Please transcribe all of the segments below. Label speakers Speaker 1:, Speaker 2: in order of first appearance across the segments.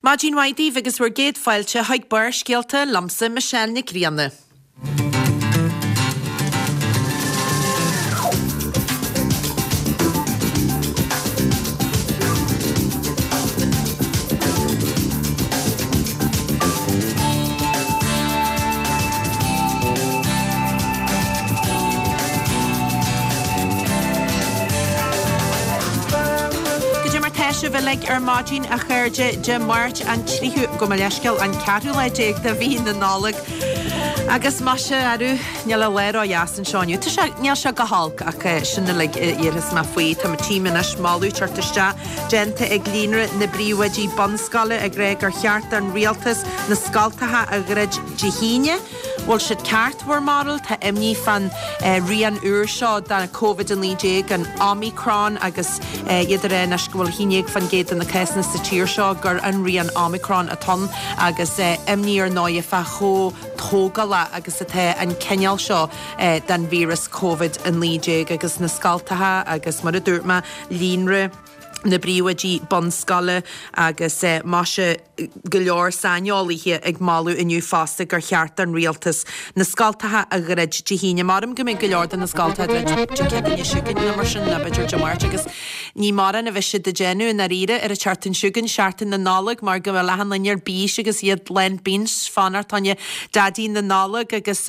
Speaker 1: Maidin mhaith daoibh agus bhur gcéad fáilte chuig Barrscéalta liomsa Michelle Nic Grianna. Goidé mar tá sibh uilig ar maidin, a chairde, Dé Máirt an tríú, gabh mo leithscéal, an ceathrú lá déag de mhí na Nollag. Agus maise, arú, níl an lá ródheas anseo inniu. Tá sé, níl sé go holc ach sin uilig a déarfas mé faoi. Tá tchím anois moladh teacht isteach déanta ag Líonra na bPríomhoidí Bunscoile ag rá gur cheart don rialtas na scoltacha a dhruid Dé hAoine. Bhfuil siad ceart, bhur mbarúil? Tá imní fán rian úr seo de Covid-19, an Omicron, agus iad ag rá anois go bhfuil 11% de na cásanna sa tír seo gur an rian Omicron atá ann agus imní ar ndóigh fá chomh tógálach agus atá an cineál seo den víreas Covid-19 agus na scoltacha agus mar a dúirt mé, líonra na bpríomhoidí bunscoile agus maise go leor saineolaithe ag moladh inniu fosta gur cheart don rialtas na scoltacha a dhruid Dé hAoine. Maram go mbeidh go leor de na scoltacha á druid Dé Céadaoine chugainn nó mar sin nó b'fhéidir Dé Máirt agus ní mórán a bheidh siad ag déanamh i ndáiríre ar an tseachtain chugainn, Seachtain na Nollag, mar go bhfuil achan duine ar bís agus iad lán bins fanacht fá choinne Daidí na Nollag agus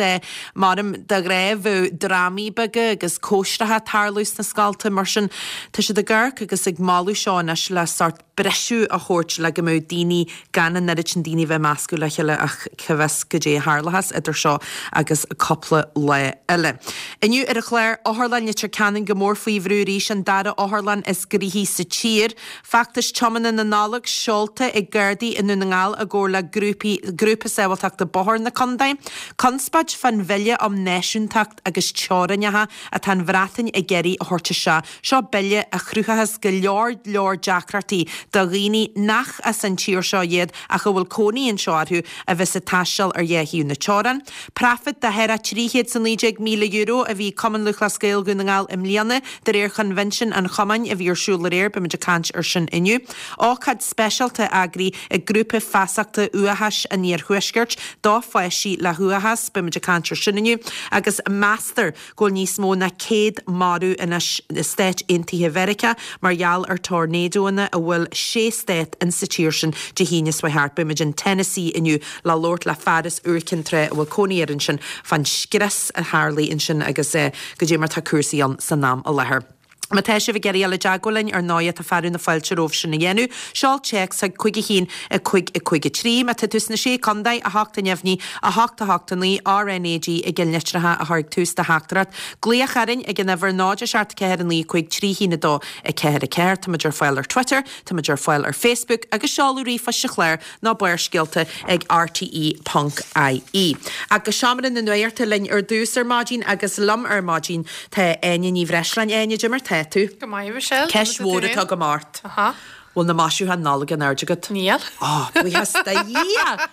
Speaker 1: Maram de ghnáth bheadh drámaí beaga agus cóisreacha ag tarlú sna scolta mar sin tá siad ag amharc agus ag moladh seo anois le sórt briseadh a thabhairt le go mbeadh daoine gan an oiread sin daoine a bheith meascadh le chéile ach cá bhfios goidé a tharlóchas idir seo agus cúpla lá eile. Inniu ar an chlár, Otharlann Leitir Ceanainn go mór faoi bhrú arís, an dara otharlann is gnoithí sa tír. Feachtas tiomána na Nollag seolta ag Gardaí i nDún na nGall i gcomhar le grúpaí Grúpa Sábháilteachta Bóthair na Contae. Conspóid fán bhille um náisiúntacht agus teorainneacha atá an Bhreatain ag iarraidh a thabhairt isteach. Seo bille a chruthóchas go leor leor deacrachtaí do dhaoine nach as an tír seo iad ach a bhfuil cónaí anseo orthu a bheas ag taisteal ar dhá thaobh na teorann. Praifit de thart ar €319,000 a bhí ag Cumann Lúthchleas Gael Dhún na nGall i mbliana, de réir choinbhinsiún an chumainn a bhí ar siúl aréir, beimid ag caint ar sin inniu. Ócáid speisialta eagraithe ag Grúpa Feasachta Uathachais an Iarthuaiscirt do pháistí le huathachas, beimid ag caint ar sin inniu. Agus meastar go bhfuil níos mó ná 100 marbh anois i Stáit Aontaithe Mheiriceá mar gheall ar tornádóanna a bhuail sé stát in sa tír sin Dé hAoine seo thart. Beimid in Tennessee inniu le labhairt le fear as Iúr Cinn Trá a bhfuil cónaí air ansin fán scrios a tharlaigh ansin agus goidé mar tá cúrsaí ann san am i láthair. Má tá sibh ag iarraidh dul i dteagmháil linn, ar ndóighe, tá fearadh na fáilte romhaibh sin a dhéanamh. Seol téacs chuig 5 1 5 5 3. Má tá tú sna Sé Contae, 8 neamhní, 8 8 9, RNAG i gcinnlitreacha a chur ag tús do theachtaireacht. Glaoch orainn ag an uimhir 0 7 4 9 5 3 1 2 4 4. Táimid ar fáil ar Twitter, táimid ar fáil ar Facebook agus seoladh ríomhphoist sa chlár nó Barrscéalta ag rte ponc ie. Ach go seomra na nuachta linn ar dtús ar maidin agus liom ar maidin tá Áine Ní Bhreisleáin. Áine, goidé mar tá tú?
Speaker 2: Go maith, Michelle.
Speaker 1: Ceist mhór atá agam ort.
Speaker 2: Aha.
Speaker 1: Bhfuil na maisiúcháin Nollag in airde agat?
Speaker 2: Níl.
Speaker 1: Ó, buíochas do Dhia!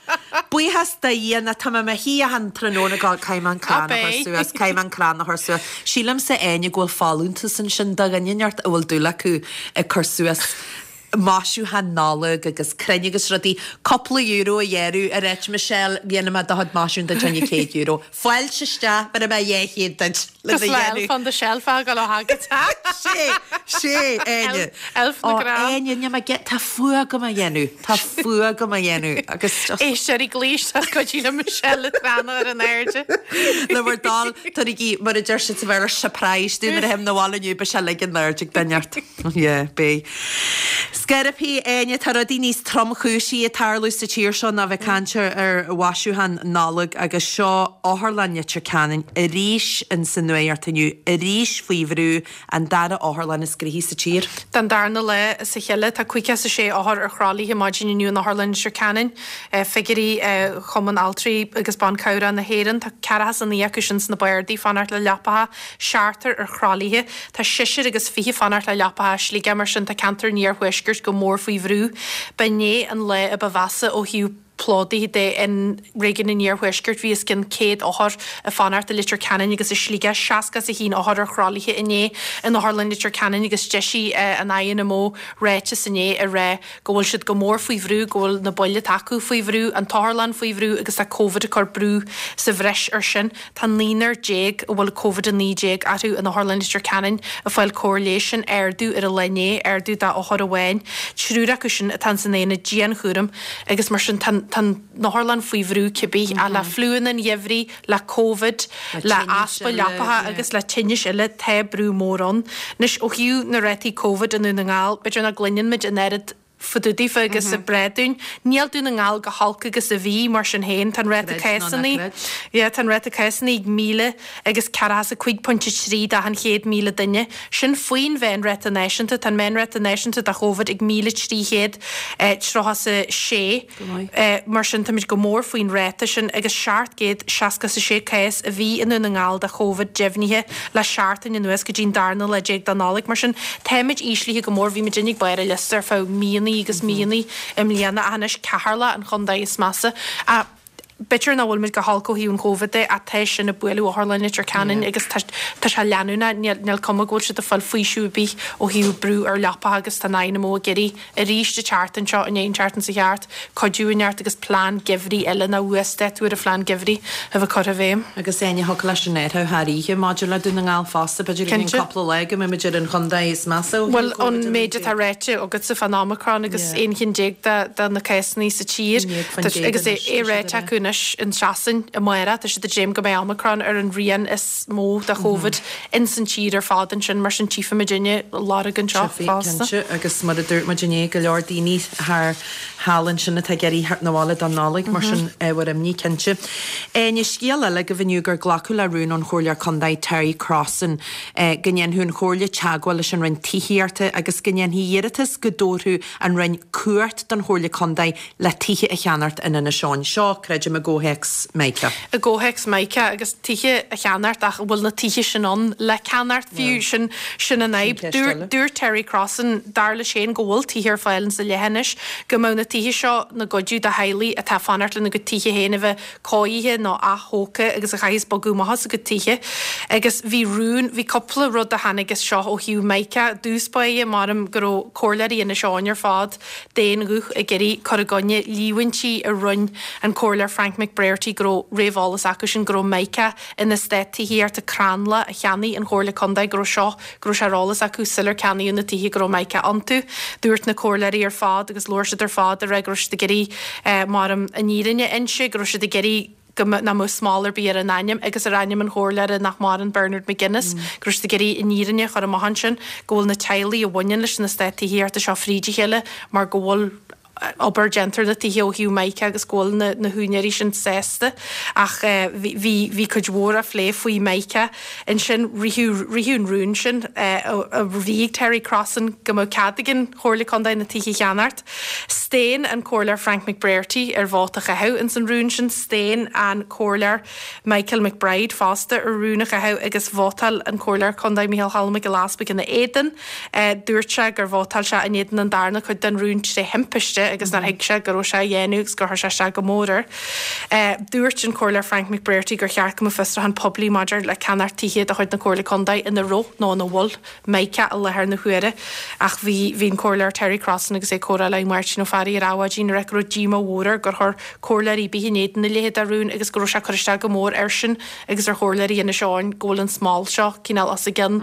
Speaker 1: Buíochas do Dhia nó tá mé i mo shuí achan tráthnóna ag gabháil caithfidh mé an crann a chur suas, caithfidh mé an crann a chur suas. Sílimse, Áine, go bhfuil folúntas ansin do dhuine inteacht a bhfuil dúil acu ag cur suas maisiúcháin Nollag agus crainn agus rudaí, cúpla euro a ghearradh ar áit Michelle, dhéanfaidh mé do chuid maisiúcháin duit fá choinne €100. Fáilte isteach, bhéarfaidh mé 200 duit
Speaker 2: le do dhéanamh. Elf on the shelf a ghabháil ó thagadh.
Speaker 1: Sé, sé, Áine.
Speaker 2: Elf na
Speaker 1: Ó,
Speaker 2: gcrann.
Speaker 1: Áine, níl mé ge, tá fuath agam a dhéanamh, tá fuath agam a dhéanamh agus just.
Speaker 2: Éisteoirí glaoigh isteach go dtí le Michelle le tráthnóna ar an airde.
Speaker 1: Le bhur dtoil, tabharaigí, mar a deir siad sa Bhéarla, surprise dúinn nuair a théim 'na bhaile inniu, beidh sé uilig in airde ag duine ort. Yeah, beidh. Scairpí, Áine, tá rudaí níos tromchúisí ag tarlú sa tír seo ná bheith ag caint ar mhaisiúcháin Nollag agus seo Otharlann Leitir Ceanainn arís in sa nuacht inniu, arís faoi bhrú, an dara otharlann is gnoithí sa tír.
Speaker 2: Don darna lá as a chéile, tá 56 othar ar thralaithe maidin inniu in Otharlann Leitir Ceanainn. Figiúirí Chumann Altraí agus Ban Cabhrach na hÉireann, tá 49 acu sin sna bardaí, fanacht le leapacha, seachtar ar thralaithe. Tá seisear agus 20 fanacht le leapacha i Sligeach, mar sin tá ceantar an iarthuaiscirt go mór faoi bhrú. B'inné an lá a ba mheasa ó thaobh. Plódaithe de in réigiún an Iarthuaiscirt. Bhí os cionn 100 othar ag fanacht i Leitir Ceanainn agus i Sligeach, 61 othar ar throlaithe inné in Otharlann Leitir Ceanainn agus d'eisigh an INMO ráiteas inné ag rá go bhfuil siad go mór faoi bhrú, go bhfuil na baill atá acu faoi bhrú, an t-otharlann faoi bhrú agus tá Covid ag cur brú sa bhreis air sin. Tá naonúr déag a bhfuil Covid-19 orthu in Otharlann Leitir Ceanainn ag fáil cóir leighis, sin ardú ar an lá inné, ardú d'othar amháin. Triúr acu sin atá ins an aonad dianchúraim agus mar sin tá an otharlann faoi bhrú cibé, ach le fliúanna an gheimhridh, le Covid, le easpa leapacha agus le tinnis eile, tá brú mór ann. Anois ó thaobh na rátaí Covid i nDún na nGall, b'fhéidir nach gcluineann muid an oiread fá dtaobh daofa agus ag breith dúinn. Níl Dún na nGall go holc agus a bhí, mar sin féin. Tá an ráta cásanna, yeah, tá an ráta cásanna ag 1,045.3 d'achan 100,000 duine. Sin faoin mheánráta náisiúnta. Tá an meánráta náisiúnta do Chóvid ag 1,336.
Speaker 1: Go maith.
Speaker 2: Mar sin, táimid go mór faoin ráta sin agus 766 cás a bhí i nDún na nGall de Chóvid deimhnithe le seachtain anuas go dtí an darna lá déag de Nollaig. Mar sin, táimid íslithe go mór. Bhí muidinne ag barr an liosta ar feadh míonnaí agus míonnaí i mbliana ach anois Ceatharlach an chontae is measa. Ach b'fhéidir nach bhfuil muid go holc ó thaobh an Chóvid de ach tá sin ag bualadh Otharlann Leitir Ceanainn agus tá sé leanúnach. Níl cuma go bhfuil siad ag fáil faoiseamh ar bith ó thaobh brú ar leapacha agus tá an INMO ag iarraidh arís an tseachtain seo, i ndiaidh an tseachtain seo thart, cuidiú a neart agus plean geimhridh eile nó uasdátú ar an phlean geimhridh a bheith curtha i bhfeidhm.
Speaker 1: Agus Áine, thiocfadh leis an athrú thar oíche maidir le Dún na nGall fosta, b'fhéidir i gceann cúpla lá go mbeidh muid ar an chontae is measa ó thaobh
Speaker 2: Bhuel, an méid atá ráite agatsa fán Omicron agus 11 chinn de na cásanna sa tír, agus é ráite acu anois in Sasain amárach, tá siad ag dréim go mbeidh Omicron ar an rian is mó de Chóvid. ins an tír ar fad ansin, mar sin tchífimid inne lorg anseo
Speaker 1: fosta. Cinnte, agus mar a dúirt muid inné, go leor daoine thar thall ansin atá ag iarraidh theacht 'na bhaile don Nollaig, mar sin ábhar imní cinnte. Áine, scéal eile agaibh inniu gur glacadh le rún ón Chomhairleoir Contae Terry Crossan go ndéanfadh an Chomhairle teagmháil leis an Roinn Tithíochta agus go ndéanfaí iarratas go dtabharfadh an Roinn cumhacht don Chomhairle Contae le tithe a cheannacht in Inis Eoghain. Seo, creidim, i gcomhthéacs
Speaker 2: Mica. I gcomhthéacs Mica agus tithe a cheannacht ach an bhfuil na tithe sin ann le ceannacht fiú? Sin, sin an fhadhb. Dúirt, dúirt Terry Crossan, dar leis féin, go bhfuil tithe ar fáil insa leithinis, go mbeadh na tithe seo 'na gcuidiú do theaghlaigh atá ag fanacht lena gcuid tithe féin a bheith cóirithe nó ath-thógtha agus a chaithfeas bogadh amach as a gcuid tithe. Agus bhí rún, bhí cúpla rud a tháinig as seo ó thaobh Mica. I dtús báire, maram go raibh comhairleoirí Inis Eoghain ar fad, d'aon ghuth ag iarraidh cur i gcoinne líomhaintí a rinne an Comhairleoir Frank McBrearty go raibh réamheolas acusin go raibh Mica in eastát tithíochta Crannla a cheannaigh an Chomhairle Contae go raibh seo go raibh sé ar eolas acu sular ceannaíodh na tithe go raibh Mica iontu. Dúirt na comhairleoirí ar fad agus labhair siad ar fad ag rá go raibh siad ag iarraidh maram an fhírinne a inse go raibh siad ag iarraidh go nach mbeadh smál ar bith ar a n-ainm agus ar ainm an chomhairleora nach maireann, Bernard McGuinness, go raibh siad ag iarraidh an fhírinne a chur amach ansin, go bhfuil na teaghlaigh a bhaineann leis an eastát tithíochta seo fríd a chéile mar go bhfuil obair déanta ar na tithe ó thaobh Mica agus go bhfuil na na húinéirí sin sásta. Ach bhí bhí bhí cuid mhór á phlé faoi Mica. Ansin ritheadh ritheadh an rún sin a bhí ag Terry Crossan go mbeadh cead ag an Chomhairle Contae na tithe a cheannacht. Staon an Comhairleoir Frank McBrearty ar vóta a chaitheamh ins an rún sin. Staon an Comhairleoir Michael McBride fosta ar rún a chaitheamh agus vótáil an Comhairleoir Contae Micheál Choilm Mac Giolla Easpaig ina éadan. Dúirt sé gur vótáil sé in éadan an darna cuid den rún tré thimpiste agus nár thuig sé go raibh sé á dhéanamh agus gur chuir sé isteach go mór air. Dúirt an Comhairleoir Frank McBrearty gur cheart go mbeadh fiosrúchán poiblí maidir le ceannacht tithe de chuid na Comhairle Contae ina raibh nó ina bhfuil Mica i láthair na huaire ach bhí bhí an Comhairleoir Terry Crossan agus é ag comhrá le Máirtín Ó Fearraigh ar Adhmhaidin ag rá go raibh díomá mhór air gur chuir comhairleoirí ar bith in éadan a leithéid de rún agus go raibh sé ag cur isteach go mór airsean agus ar chomhairleoirí Inis Eoghain go bhfuil an smál seo cineál os a gcionn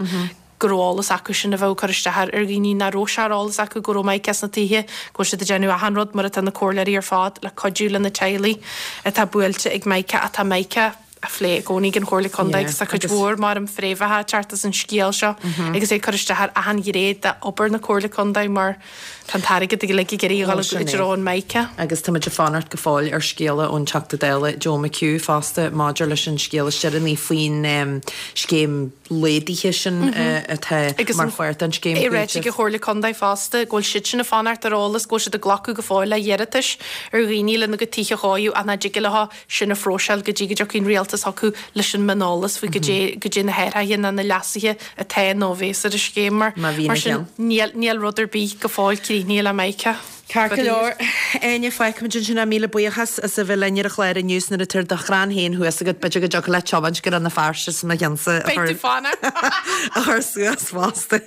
Speaker 2: go raibh eolas acu sin a bheadh ag cur isteach ar dhaoine nach raibh sé ar eolas acu go raibh Mica sna tithe, go bhfuil siad ag déanamh achan rud mar atá na comhairleoirí ar fad le cuidiú le na teaghlaigh atá buailte ag Mica ach tá Mica á phlé i gcónaí ag an Chomhairle Contae agus tá cuid mhór maram fréamhacha ag teacht as an scéal seo agus é ag cur isteach ar achan ghné d'obair na Comhairle Contae mar tá an t-airgead uilig ag iarraidh a dhul i dtreo an Mica.
Speaker 1: Agus tá muid ag fanacht go fóill ar scéala ón Teachta Dála Joe McHugh fosta maidir leis an scéal is deireanaí faoin scéim laghdaithe sin atá mar pháirt den scéim
Speaker 2: Agus é ráite ag an Chomhairle Contae fosta go bhfuil siadsan ag fanacht ar eolas go bhfuil siad ag glacadh go fóill le hiarratais ar dhaoine lena gcuid tithe a chóiriú ach nach dtig leo sin a phróiseáil go dtí go dtiocfaidh an rialtas. rialtas chucu leis an mioneolas faoi goidé goidé na hathruithe ná na leasuithe atá nó a bhéas ar an scéim mar mar sin níl níl rud ar bith go fóill críochnaithe le Michael.
Speaker 1: Ceart go leor, Áine, fágfaimid ansin é. Míle buíochas as a bheith linn ar an chlár inniu 's nuair atá do chrann féin thuas agat, b'fhéidir go dtiocfadh leat tiomáint go Rann na Feirste 's mo cheannsa a
Speaker 2: Beidh tú fánach!
Speaker 1: a chur suas fosta.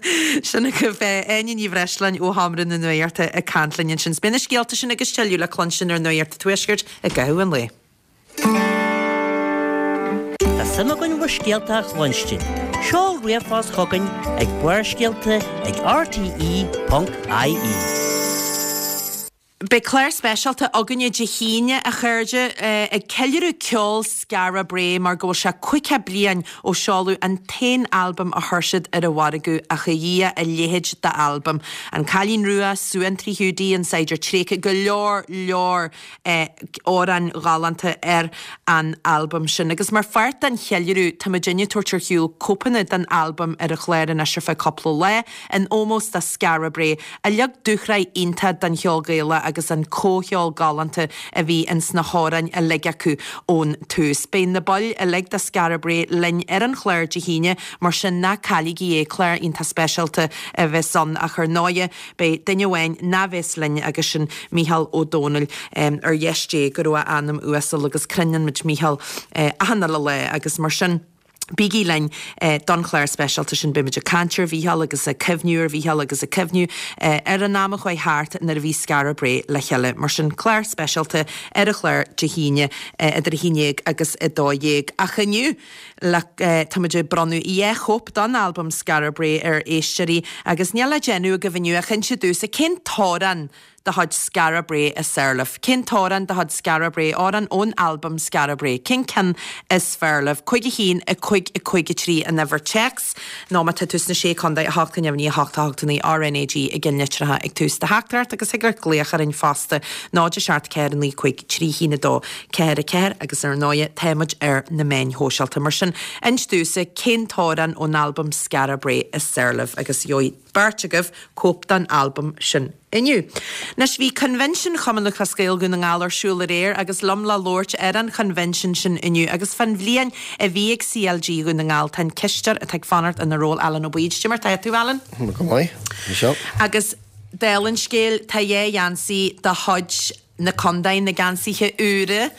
Speaker 1: Sin agaibh Áine Ní Bhreisleáin ó Sheomra na Nuachta ag caint linn ansin. 'S beidh na scéalta sin agus tuilleadh le cluinstin ar Nuacht an Tuaiscirt i gcaitheamh an lae.
Speaker 3: Tá suim againn bhur scéalta a chluinstin. Seol ríomhphost chugainn ag barrscéalta ag rte.ie.
Speaker 1: Beidh clár speisialta againne Dé hAoine, a chairde, ag ceiliúradh ceol Skara Brae mar go bhfuil sé 50 bliain ó seoladh an t-aon albam a chuir siad ar an mhargadh, ach a Dhia, a leithéid d'albam. An Cailín Rua, Suantraí Hiúdaí, An Saighdiúir Tréigthe, go leor leor amhráin ghalánta ar an albam sin. Agus mar pháirt den cheiliúradh, tá muidinne ag tabhairt ar shiúl cóipeanna den albam ar an chlár anois ar feadh cúpla lá, in ómós do Skara Brae, a leag dúshraith iontach don cheol Gaelach agus an comhcheol galánta a bhí ins na hamhráin uilig acu ón tús. Beidh na baill uilig de Skara Brae linn ar an chlár Dé hAoine, mar sin ná cailligí é, clár iontach speisialta a bheas ann ach ar ndóighe, Beidh duine amháin ná bheas linn agus sin Mícheál Ó Domhnaill. Ar dheis Dé go raibh a anam uasal agus croineann muid Mícheál achan uile lá agus mar sin bígí linn don chlár speisialta sin. Beidh muid ag caint ar Mhícheál agus ag cuimhniú ar Mhícheál agus ag cuimhniú ar an am a chuaigh thart nuair a bhí Skara Brae le chéile. Mar sin clár speisialta ar an chlár Dé hAoine idir 11 agus 12. Ach inniu, Le, táimid ag bronnadh 2 chóip don albam Skara Brae ar éisteoirí agus níl le déanamh agaibh inniu ach inse domhsa cén t-amhrán de chuid Skara Brae is fearr libh? Cén t-amhrán de chuid Skara Brae, amhrán ón albam Skara Brae, cén ceann is fearr libh? 5 1 5 5 3 an uimhir téacs nó má tá tú sna Sé Contae 8 neamhní 8 8 9 RnaG i gceannlitreacha ag tús do theachtaireacht agus thig leat glaoch orainn fosta 0 7 4 9 5 3 1 2 4 4 agus ar ndóighe tá muid ar na meáin shóisialta. Mar sin, inis domhsa cén t-amhrán ón albam Skara Brae is fearr libh agus gheobhaidh beirt agaibh cóip den albam sin inniu. Anois, bhí Coinbhinsean Chumann Lúthchleas Gael Dhún na nGall ar siúl aréir agus liom le labhairt ar an choinbhinsean sin inniu agus fán bhliain a bhí ag CLG Dhún na nGall tá an cisteoir atá ag fanacht ina ról Alan Ó Baoid. Cad é mar tá tú, Alan?
Speaker 4: Go maith, Michelle.
Speaker 1: Agus dála an scéil, tá dhá gheansaí de chuid na contae, na geansaithe úra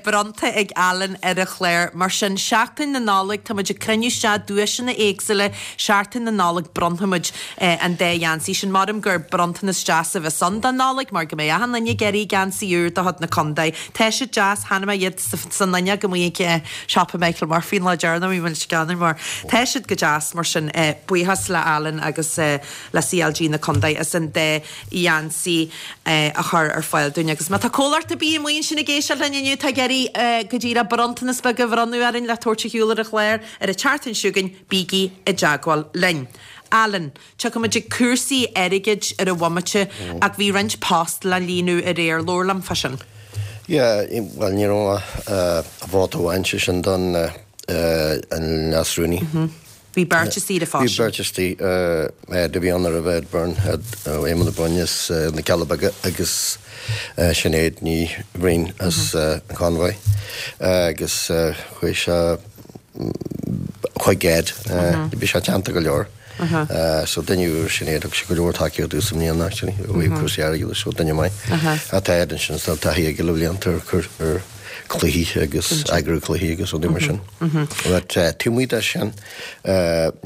Speaker 1: bronnta ag Alan ar an chlár. Mar sin, Seachtain na Nollag, tá muid ag cruinniú isteach duaiseanna éagsúla, Seachtain na Nollag bronnfaimid an dá gheansaí sin. Maram gur bronntanas deas a bheas ann don Nollaig mar go mbeidh achan duine ag iarraidh geansaí úr de chuid na contae. Tá siad deas, chonaic mé iad san fhuinneog amuigh ag siopa Michael Murphy an lá deireanach, bhí mé ag ceannach mar tá siad go deas mar sin. Buíochas le Alan agus le CLG na contae as an dá gheansaí a chur ar fáil dúinn. Agus má tá comhlacht ar bith amuigh ansin ag éisteacht linn inniu atá ag iarraidh go díreach bronntanas beag a bhronnadh orainn le tabhairt ar shiúl ar an chlár ar an tseachtain seo chugainn, bígí i dteagmháil linn. Alan, tiocfaimid ag cúrsaí airgid ar an bhomaite ach bhí roinnt post le líonadh aréir, labhair liom fá sin.
Speaker 4: Yeah, bhuel ní raibh ach vóta amháin, sé sin don an leas-rúnaí.
Speaker 1: Bhí beirt istigh ar an phost
Speaker 4: Bhí beirt istigh, do bhí ann roimhe Ed Byrne, Ed ó Éamonn Ó Broin as na Cealla Beaga agus Sinéad Ní Bhriain as an Convoy agus chuaigh sé chuig Ed, bhí sé teannta go leor. So duine úr Sinéad, thug sé go leor tacaíocht domhsa i mbliana actually, ó thaobh cúrsaí airgeadais, so duine maith. Tá Ed ansin, tá taithí aige le blianta ar cluichí agus eagrú cluichí agus rudaí mar sin. But taobh amuigh de sin.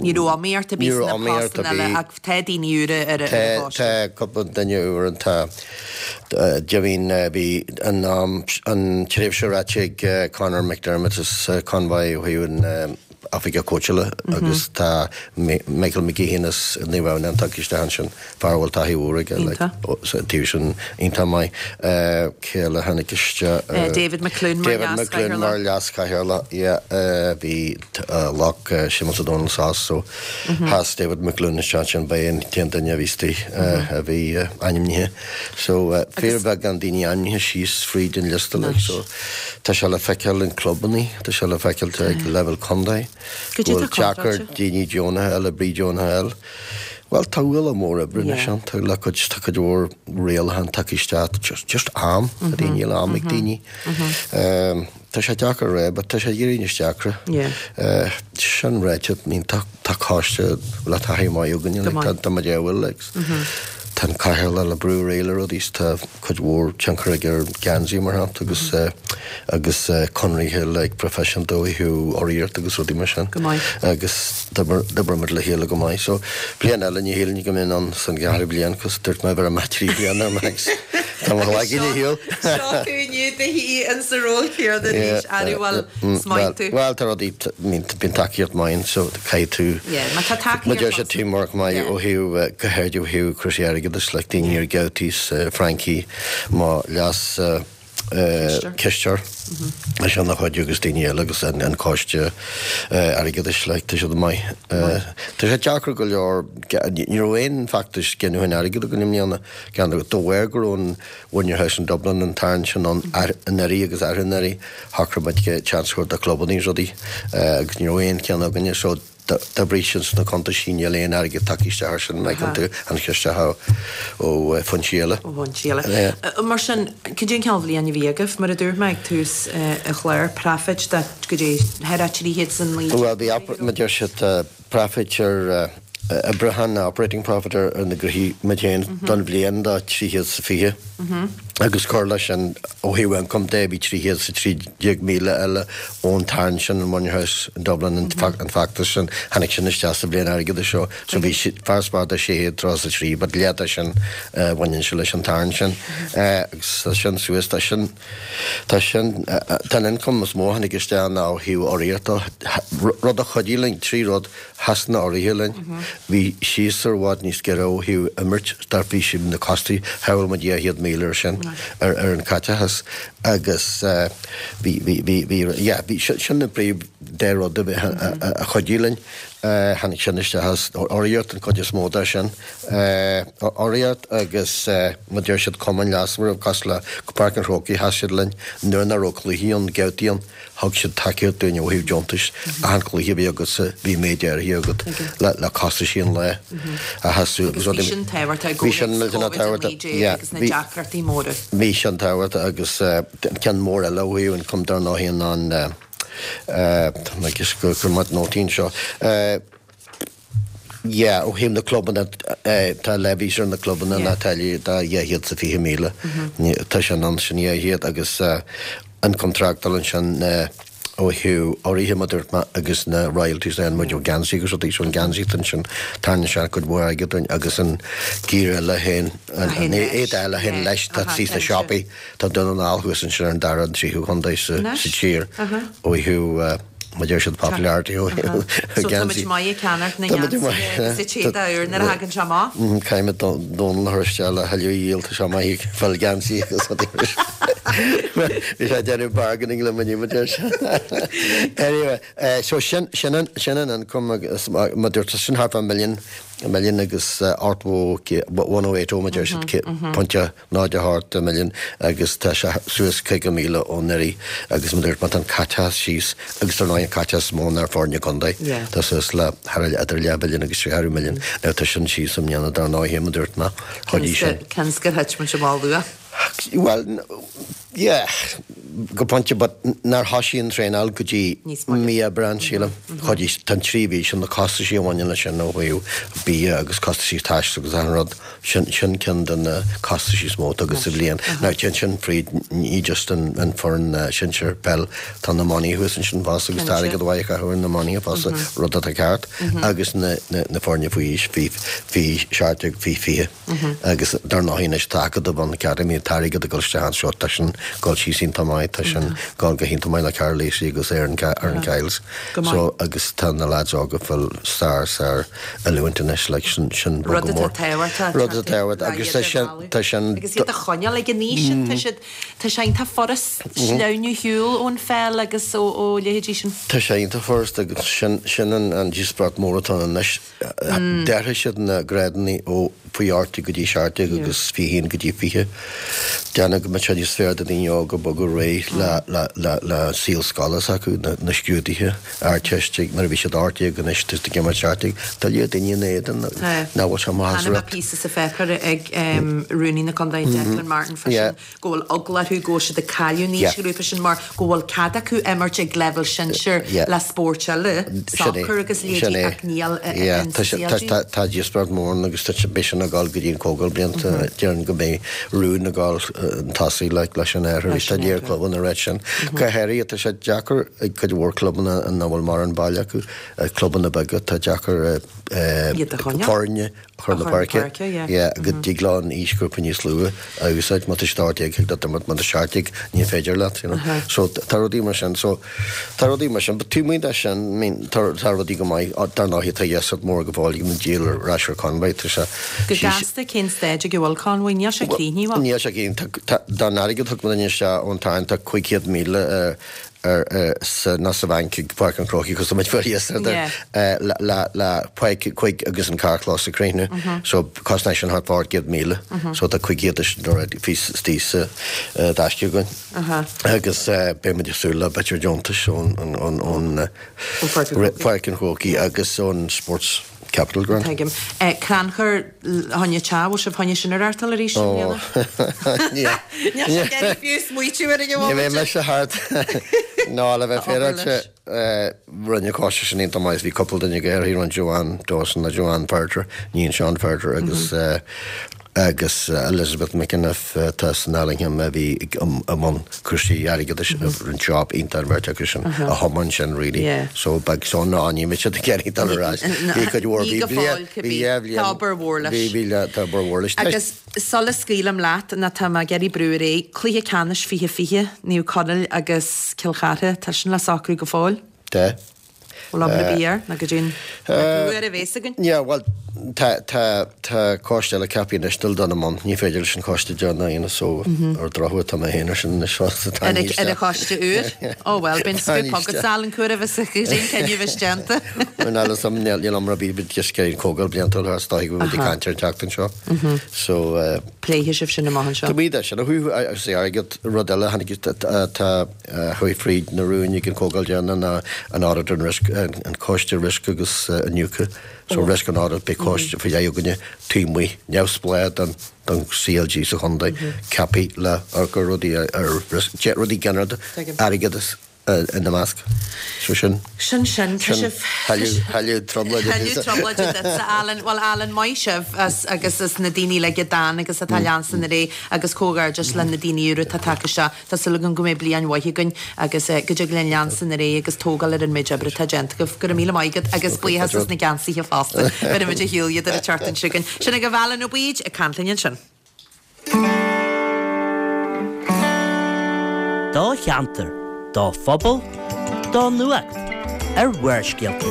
Speaker 1: Ní raibh iomaíocht ar bith sna postanna eile ach tá daoine úra ar an bpost.
Speaker 4: Tá cúpla duine úr ann tá Jimín bhí an an tréimhse ráite ag Conor McDermott as Convoy ó thaobh an oifigeach cóitseála agus tá Michael McGeehan as Naomh Adhamhnáin tagtha isteach ansin, fear a bhfuil taithí mhór aige like sa taobh sin iontach maith. Cé eile a tháinig
Speaker 1: isteach? David McLoone mar
Speaker 4: David McLoone mar leas-chathaoirleach, yeah. Bhí ghlac Séamus Ó Domhnaill sos so sheas David McLoone isteach ansin, ba é an t-aon duine a bhí istigh a bhí ainmnithe. So fíorbheagán daoine ainmnithe síos fríd an liosta like so tá sé le feiceáil in clubannaí, tá sé le feiceáil ag leibhéal contae go bhfuil deacair daoine deonacha a fháil, oibrí deonacha a fháil. Bhuel, tá ualach mór oibre anois ann, tá le cuid, tá cuid mhór rialachán tagtha isteach, just, just am, a daoine, níl am ag daoine. Tá sé deacair a rá, but tá sé ag éirí níos deacra. Sin ráite, I mean, tá, tá coiste le taithí maith againne, like, tá, tá muid a bhfuil, like, tá an cathaoirleach le brú ar aghaidh le rudaí, tá cuid mhór tionchar aige ar geansaí, mar shampla, agus, agus conraithe like proifisiúnta ó thaobh urraíocht agus rudaí mar sin.
Speaker 1: Go maith.
Speaker 4: Agus d'oibrigh muid le chéile go maith. So, bliain eile ní shílfinn go mbeinn ann san gceathrú bliain, cos dúirt mé bheir amach 3 bliana ar max. Tá mo ghlaigín ar shiúl.
Speaker 1: Seo tú inniu do shuí in sa ról céanna arís, arú bhuel, is maith tú.
Speaker 4: Bhuel, tá rudaí, I mean, bíonn tacaíocht maith ann, so caithfidh tú,
Speaker 1: Yeah, má tá tacaíocht
Speaker 4: má deir siad teamwork maith ó thaobh, go háirid ó thaobh cúrsaí airgeadais, like daoine ar Gabhtaí, Frankie, mo leas cisteoir, leis an a chuid agus daoine eile agus an coiste airgeadais, like, tá siad maith. Tá sé deacair go leor, ní raibh aon feachtas giniúcháin airgid againn i mbliana, gan dabht. De bharr go raibh an Win Your House in Dublin an tarraingt sin ann anuraidh agus arú-anuraidh, shocraigh muid seans a thabhairt do chlubanna is rudaí agus ní raibh aon cheann againne so d'oibrigh sin sna cuntaisí, níl aon airgead tagtha isteach ar sin, an dtuigeann tú, tháinig sé isteach ó foinsí
Speaker 1: eile. Ó fhoinsí eile. Mar sin, cad é an cineál bhliain a bhí agaibh? Mar a dúirt mé ag tús an chláir, profit de go dtí thar 309.
Speaker 4: Bhuel, bhí, mar a deir siad, profit ar oibriúchán, operating profit ar na gnóthaí muid féin don bhliain de 320 agus cur leis sin ó thaobh ioncaim de bhí 313,000 eile ón tarraingt sin an Win Your House in Dublin an feachtas sin tháinig sin isteach sa bhliain airgeadais seo so bhí farasbarr de 633 but leath de sin bhaineann sé leis an tarraingt sin agus tá sin suas tá sin Tá sin, tá an ioncam is mó a tháinig isteach ná ó thaobh urraíochta, rud a chuidigh linn, 3 rud, sheas na urraithe linn, bhí séasúr i bhfad níos giorra ó thaobh imirt, dar bhí siad na costais, shábháil muid 200,000 ar sin, ar an chaiteachas agus bhí, bhí, bhí, bhí, yeah, bhí, sin na príomh dá rud a a chuidigh linn. Tháinig sin isteach as urraíocht an chuid is mó de sin. Urraíocht agus mar deir siad cumainn leasmhara cosúil le Páirc an Chrócaigh sheas siad linn nuair nach raibh cluichí ann, babhtaí ann, thug siad tacaíocht dúinn ó thaobh deontais. Achan cluiche a bhí agatsa bhí méid áirithe agat le costaisí an lae a sheasamh.
Speaker 1: Agus bhí sin tábhachtach i gcomhthéacs Covid-19 agus na deacrachtaí móra.
Speaker 4: Bhí sin tábhachtach agus an ceann mór eile ó thaobh ioncaim dar ndóigh ná an Tá mé ag cur mo nótaí anseo. Yeah, ó thaobh na clubanna, tá levies ar na clubanna ná táillí de 220,000. Tá sin ann, sin 200 agus ioncam tráchtála ansin ó thaobh urraithe mar a dúirt mé agus na royalties a fhaigheann muid ó gheansaí agus rudaí. So an geansaí ansin, tarraingíonn sé cuid mhór airgid dúinn agus an giar eile féin, an éide eile féin leis, tá sí sna siopaí. Tá Dún na nGall thuas ansin ar an dara an tríú chontae sa tír ó thaobh mar deir siad popularity ó thaobh
Speaker 1: So tá muid maith ag ceannacht na ngeansaithe agus an t-éadach úr nuair a thagann sé amach.
Speaker 4: Caithfidh muid Dónal a chur isteach le thuilleadh a dhíol, tá sé maith ag fáil geansaí agus rudaí mar sin. Bhí sé ag déanamh bargaining le muid mar deir sé. Anyway, so sin sin an sin an ioncam agus mar dúirt sin thart fá milliún milliún agus 80 1080 mar deir siad pointe 08 milliún agus tá sé suas 50,000 ó anuraidh agus mar a dúirt mé tá an caiteachas síos agus dar ndóigh an caiteachas is mó ná ar foirne contae tá suas le thar idir leathmhilliún agus ceathrú milliún now tá sin síos i mbliana dar ndóigh mar a dúirt mé chuidigh sin.
Speaker 1: Seans gur thit muid amach luath.
Speaker 4: Bhuel yeah go pointe but nár thosaigh an traenáil go dtí mí Aibreán sílim. Chuidigh tá an 3 mhí sin na costaisí a bhaineann leis sin ó thaobh bia agus costaisí taistil agus achan rud. Sin ceann de na costaisí is mó atá agat sa bhliain. Now téann sin fríd ní just an foireann sinsir peil, tá na iománaithe thuas ansin fosta agus tá airgead mhaith á chaitheamh ar na iománaithe fosta, rud atá ceart, agus na na foirne faoi aois, faoi faoi 17, faoi 20. Agus dar ndóigh anois tá Acadamh ann, Academy, tá airgead ag dul isteach anseo, tá sin ag dul síos iontach maith, tá sin ag dul go hiontach maith le Karl Lacey agus Aaron Aaron Kyles. So agus tá na lads óga ag fáil sár sár oiliúint anois like sin sin
Speaker 1: Rud atá tábhachtach.
Speaker 4: Rud atá tábhachtach agus tá sin tá sin.
Speaker 1: Agus iad a choinneáil ag an aois sin tá siad tá sé iontach furast sleamhnú ar shiúl ón pheil agus ó ó leithéidí sin.
Speaker 4: Tá sé iontach furast agus sin sin an an díospóireacht mór atá ann anois. D'athraigh siad na grádanna ó faoi 18 go dtí 17 agus 21 go dtí 20. Déanamh go mbeadh sé níos fearr do daoine óga bogadh ar aghaidh. aghaidh le saol scoile s'acu, na scrúduithe Ardteiste nuair a bhí siad 18 anois tá siad ag imirt 17. Tá lear daoine ina éadan nach bhfuil sé maith as
Speaker 1: Chonaic mé píosa sa pháipéar ag Rúnaí na Contae Declan Martin fá sin go bhfuil eagla orthu go bhfuil siad ag cailleadh an aoisghrúpa sin mar go bhfuil cead acu imirt ag leibhéal sinsir le spóirt eile, sacar agus leithéidí ach níl in
Speaker 4: CLG. Tá díospóireacht mór ann agus beidh sin ag dul go dtí an Comhdháil blianta déarfainn go mbeidh rún ag dul chun tosaigh leis an athrú. Tá lear clubanna ag ráit sin. Go háirithe tá sé deacair ag cuid mhór clubanna nach bhfuil mórán baile acu, clubanna beaga, tá deacair foirne a chur na páirce. Yeah, go dtig leo an aoisghrúpa níos lú a úsáid. Má tá siad 18 thig leat imirt, má tá 17 ní féidir leat, you know. So tá rudaí mar sin. So tá rudaí mar sin. But taobh amuigh de sin, I mean, tá tá rudaí go maith. Dar ndóigh tá dheasat mór go fóill ag an díol ar ais ar Convoy. Tá sé
Speaker 1: Go gasta cén staid ag a bhfuil Convoy? Níl sé críochnaithe,
Speaker 4: bhfuil? Níl sé críochnaithe. Tá tá den airgead a thug muidinne isteach ón táin tá 500,000 ar sa nó sa bhanc ag Páirc an Chrócaigh cos tá muid fóir yesterday le le le Páirc Chuig agus an carrchlós a chríochnú so cosnaíonn sin thart fá 800,000 so tá 500 de sin already fís istigh sa dtaisce againn agus beidh muid ag súil le b'fhéidir deontais ón ón ón Páirc an Chrócaigh agus ón Sports Capital Grant.
Speaker 1: Tuigim. Crannchur choinne teach, bhfuil sibh choinne sin a reáchtáil arís i mbliana?
Speaker 4: Níl.
Speaker 1: Níl sé ag iarraidh fiú smaoitiú ar an
Speaker 4: Ní bheidh mise thart. Ná, le bheith féaráilte, rinne an coiste sin iontach maith. Bhí cúpla duine go háirithe, rinne Joanne Dawson nó Joanne Ferriter, níon Sean Ferriter agus agus Elizabeth McEniff atá san Allingham a bhí i mbun cúrsaí airgeadais rinne job iontach an bheirt acu sin a thiomáin sin really so beidh so ná ní mbeidh siad ag iarraidh dul ar ais bhí cuid mhór
Speaker 1: bhí bliain bhí dhá bhliain Tá obair mhór leis.
Speaker 4: Bhí bhí tá obair mhór leis.
Speaker 1: Agus sula scaoilim leat ná tá mé ag iarraidh brú ar aghaidh, cluiche ceannais 2020, Naomh Conaill agus Cill Chartha, tá sin le socrú go fóill?
Speaker 4: Tá.
Speaker 1: Bhfuil obair ar bith air nó go dtí an uair a bhéas againn?
Speaker 4: Yeah, bhuel, tá, tá, tá coiste eile ceaptha anois dul dul i mbun. Ní féidir leis an choiste deireanach a dhéanamh so ar drochuair tá mé féin ar sin anois fosta.
Speaker 1: Tá Ar an ar an choiste úr? Ó bhuel, bíonn scoop agat Alan cá huair a bheas an cinneadh bheas déanta.
Speaker 4: Bhuel, níl 'fhios a'm, níl, níl iomrá ar bith, but just an comhdháil bliantúil thar is dóigh go bhfuil muid ag caint ar an tseachtain seo. So, eh.
Speaker 1: Pléifidh sibh sin amach anseo.
Speaker 4: Tá muid sin a thabhairt, agus airgead, rud eile a tháinig, tá, a chuaigh fríd na rúin ag an Chomhdháil deireanach ná an Audit and Risk, an Coiste Riosca agus Iniúchadh. So Risk and Audit, beidh coiste faoi leith againne taobh amuigh, neamhspleách don don CLG sa chontae, ceaptha le amharc ar rudaí ar riosca, rudaí ginearálta, airgeadas ina measc. So
Speaker 1: sin. Sin sin, tá
Speaker 4: sibh. Thuilleadh trioblóide.
Speaker 1: Thuilleadh trioblóide duitse, Alan. Bhuel, Alan, maith sibh as agus as na daoine uilig a d'fhan agus atá ag leanstan ar aghaidh agus comhghairdeas le na daoine úra atá tagtha isteach. Tá súil agam go mbeidh bliain mhaith againn agus go dtig linn leanstan ar aghaidh agus tógáil ar an méid oibre atá déanta agaibh. Go raibh míle maith agat agus buíochas as na geansaithe fosta. Beidh muid ar shiúl iad ar an tseachtain seo chugainn. Sin agaibh Alan Ó Baoid ag caint linn ansin.
Speaker 3: Do cheantar, do phobal, do nuacht ar Bharrscéalta.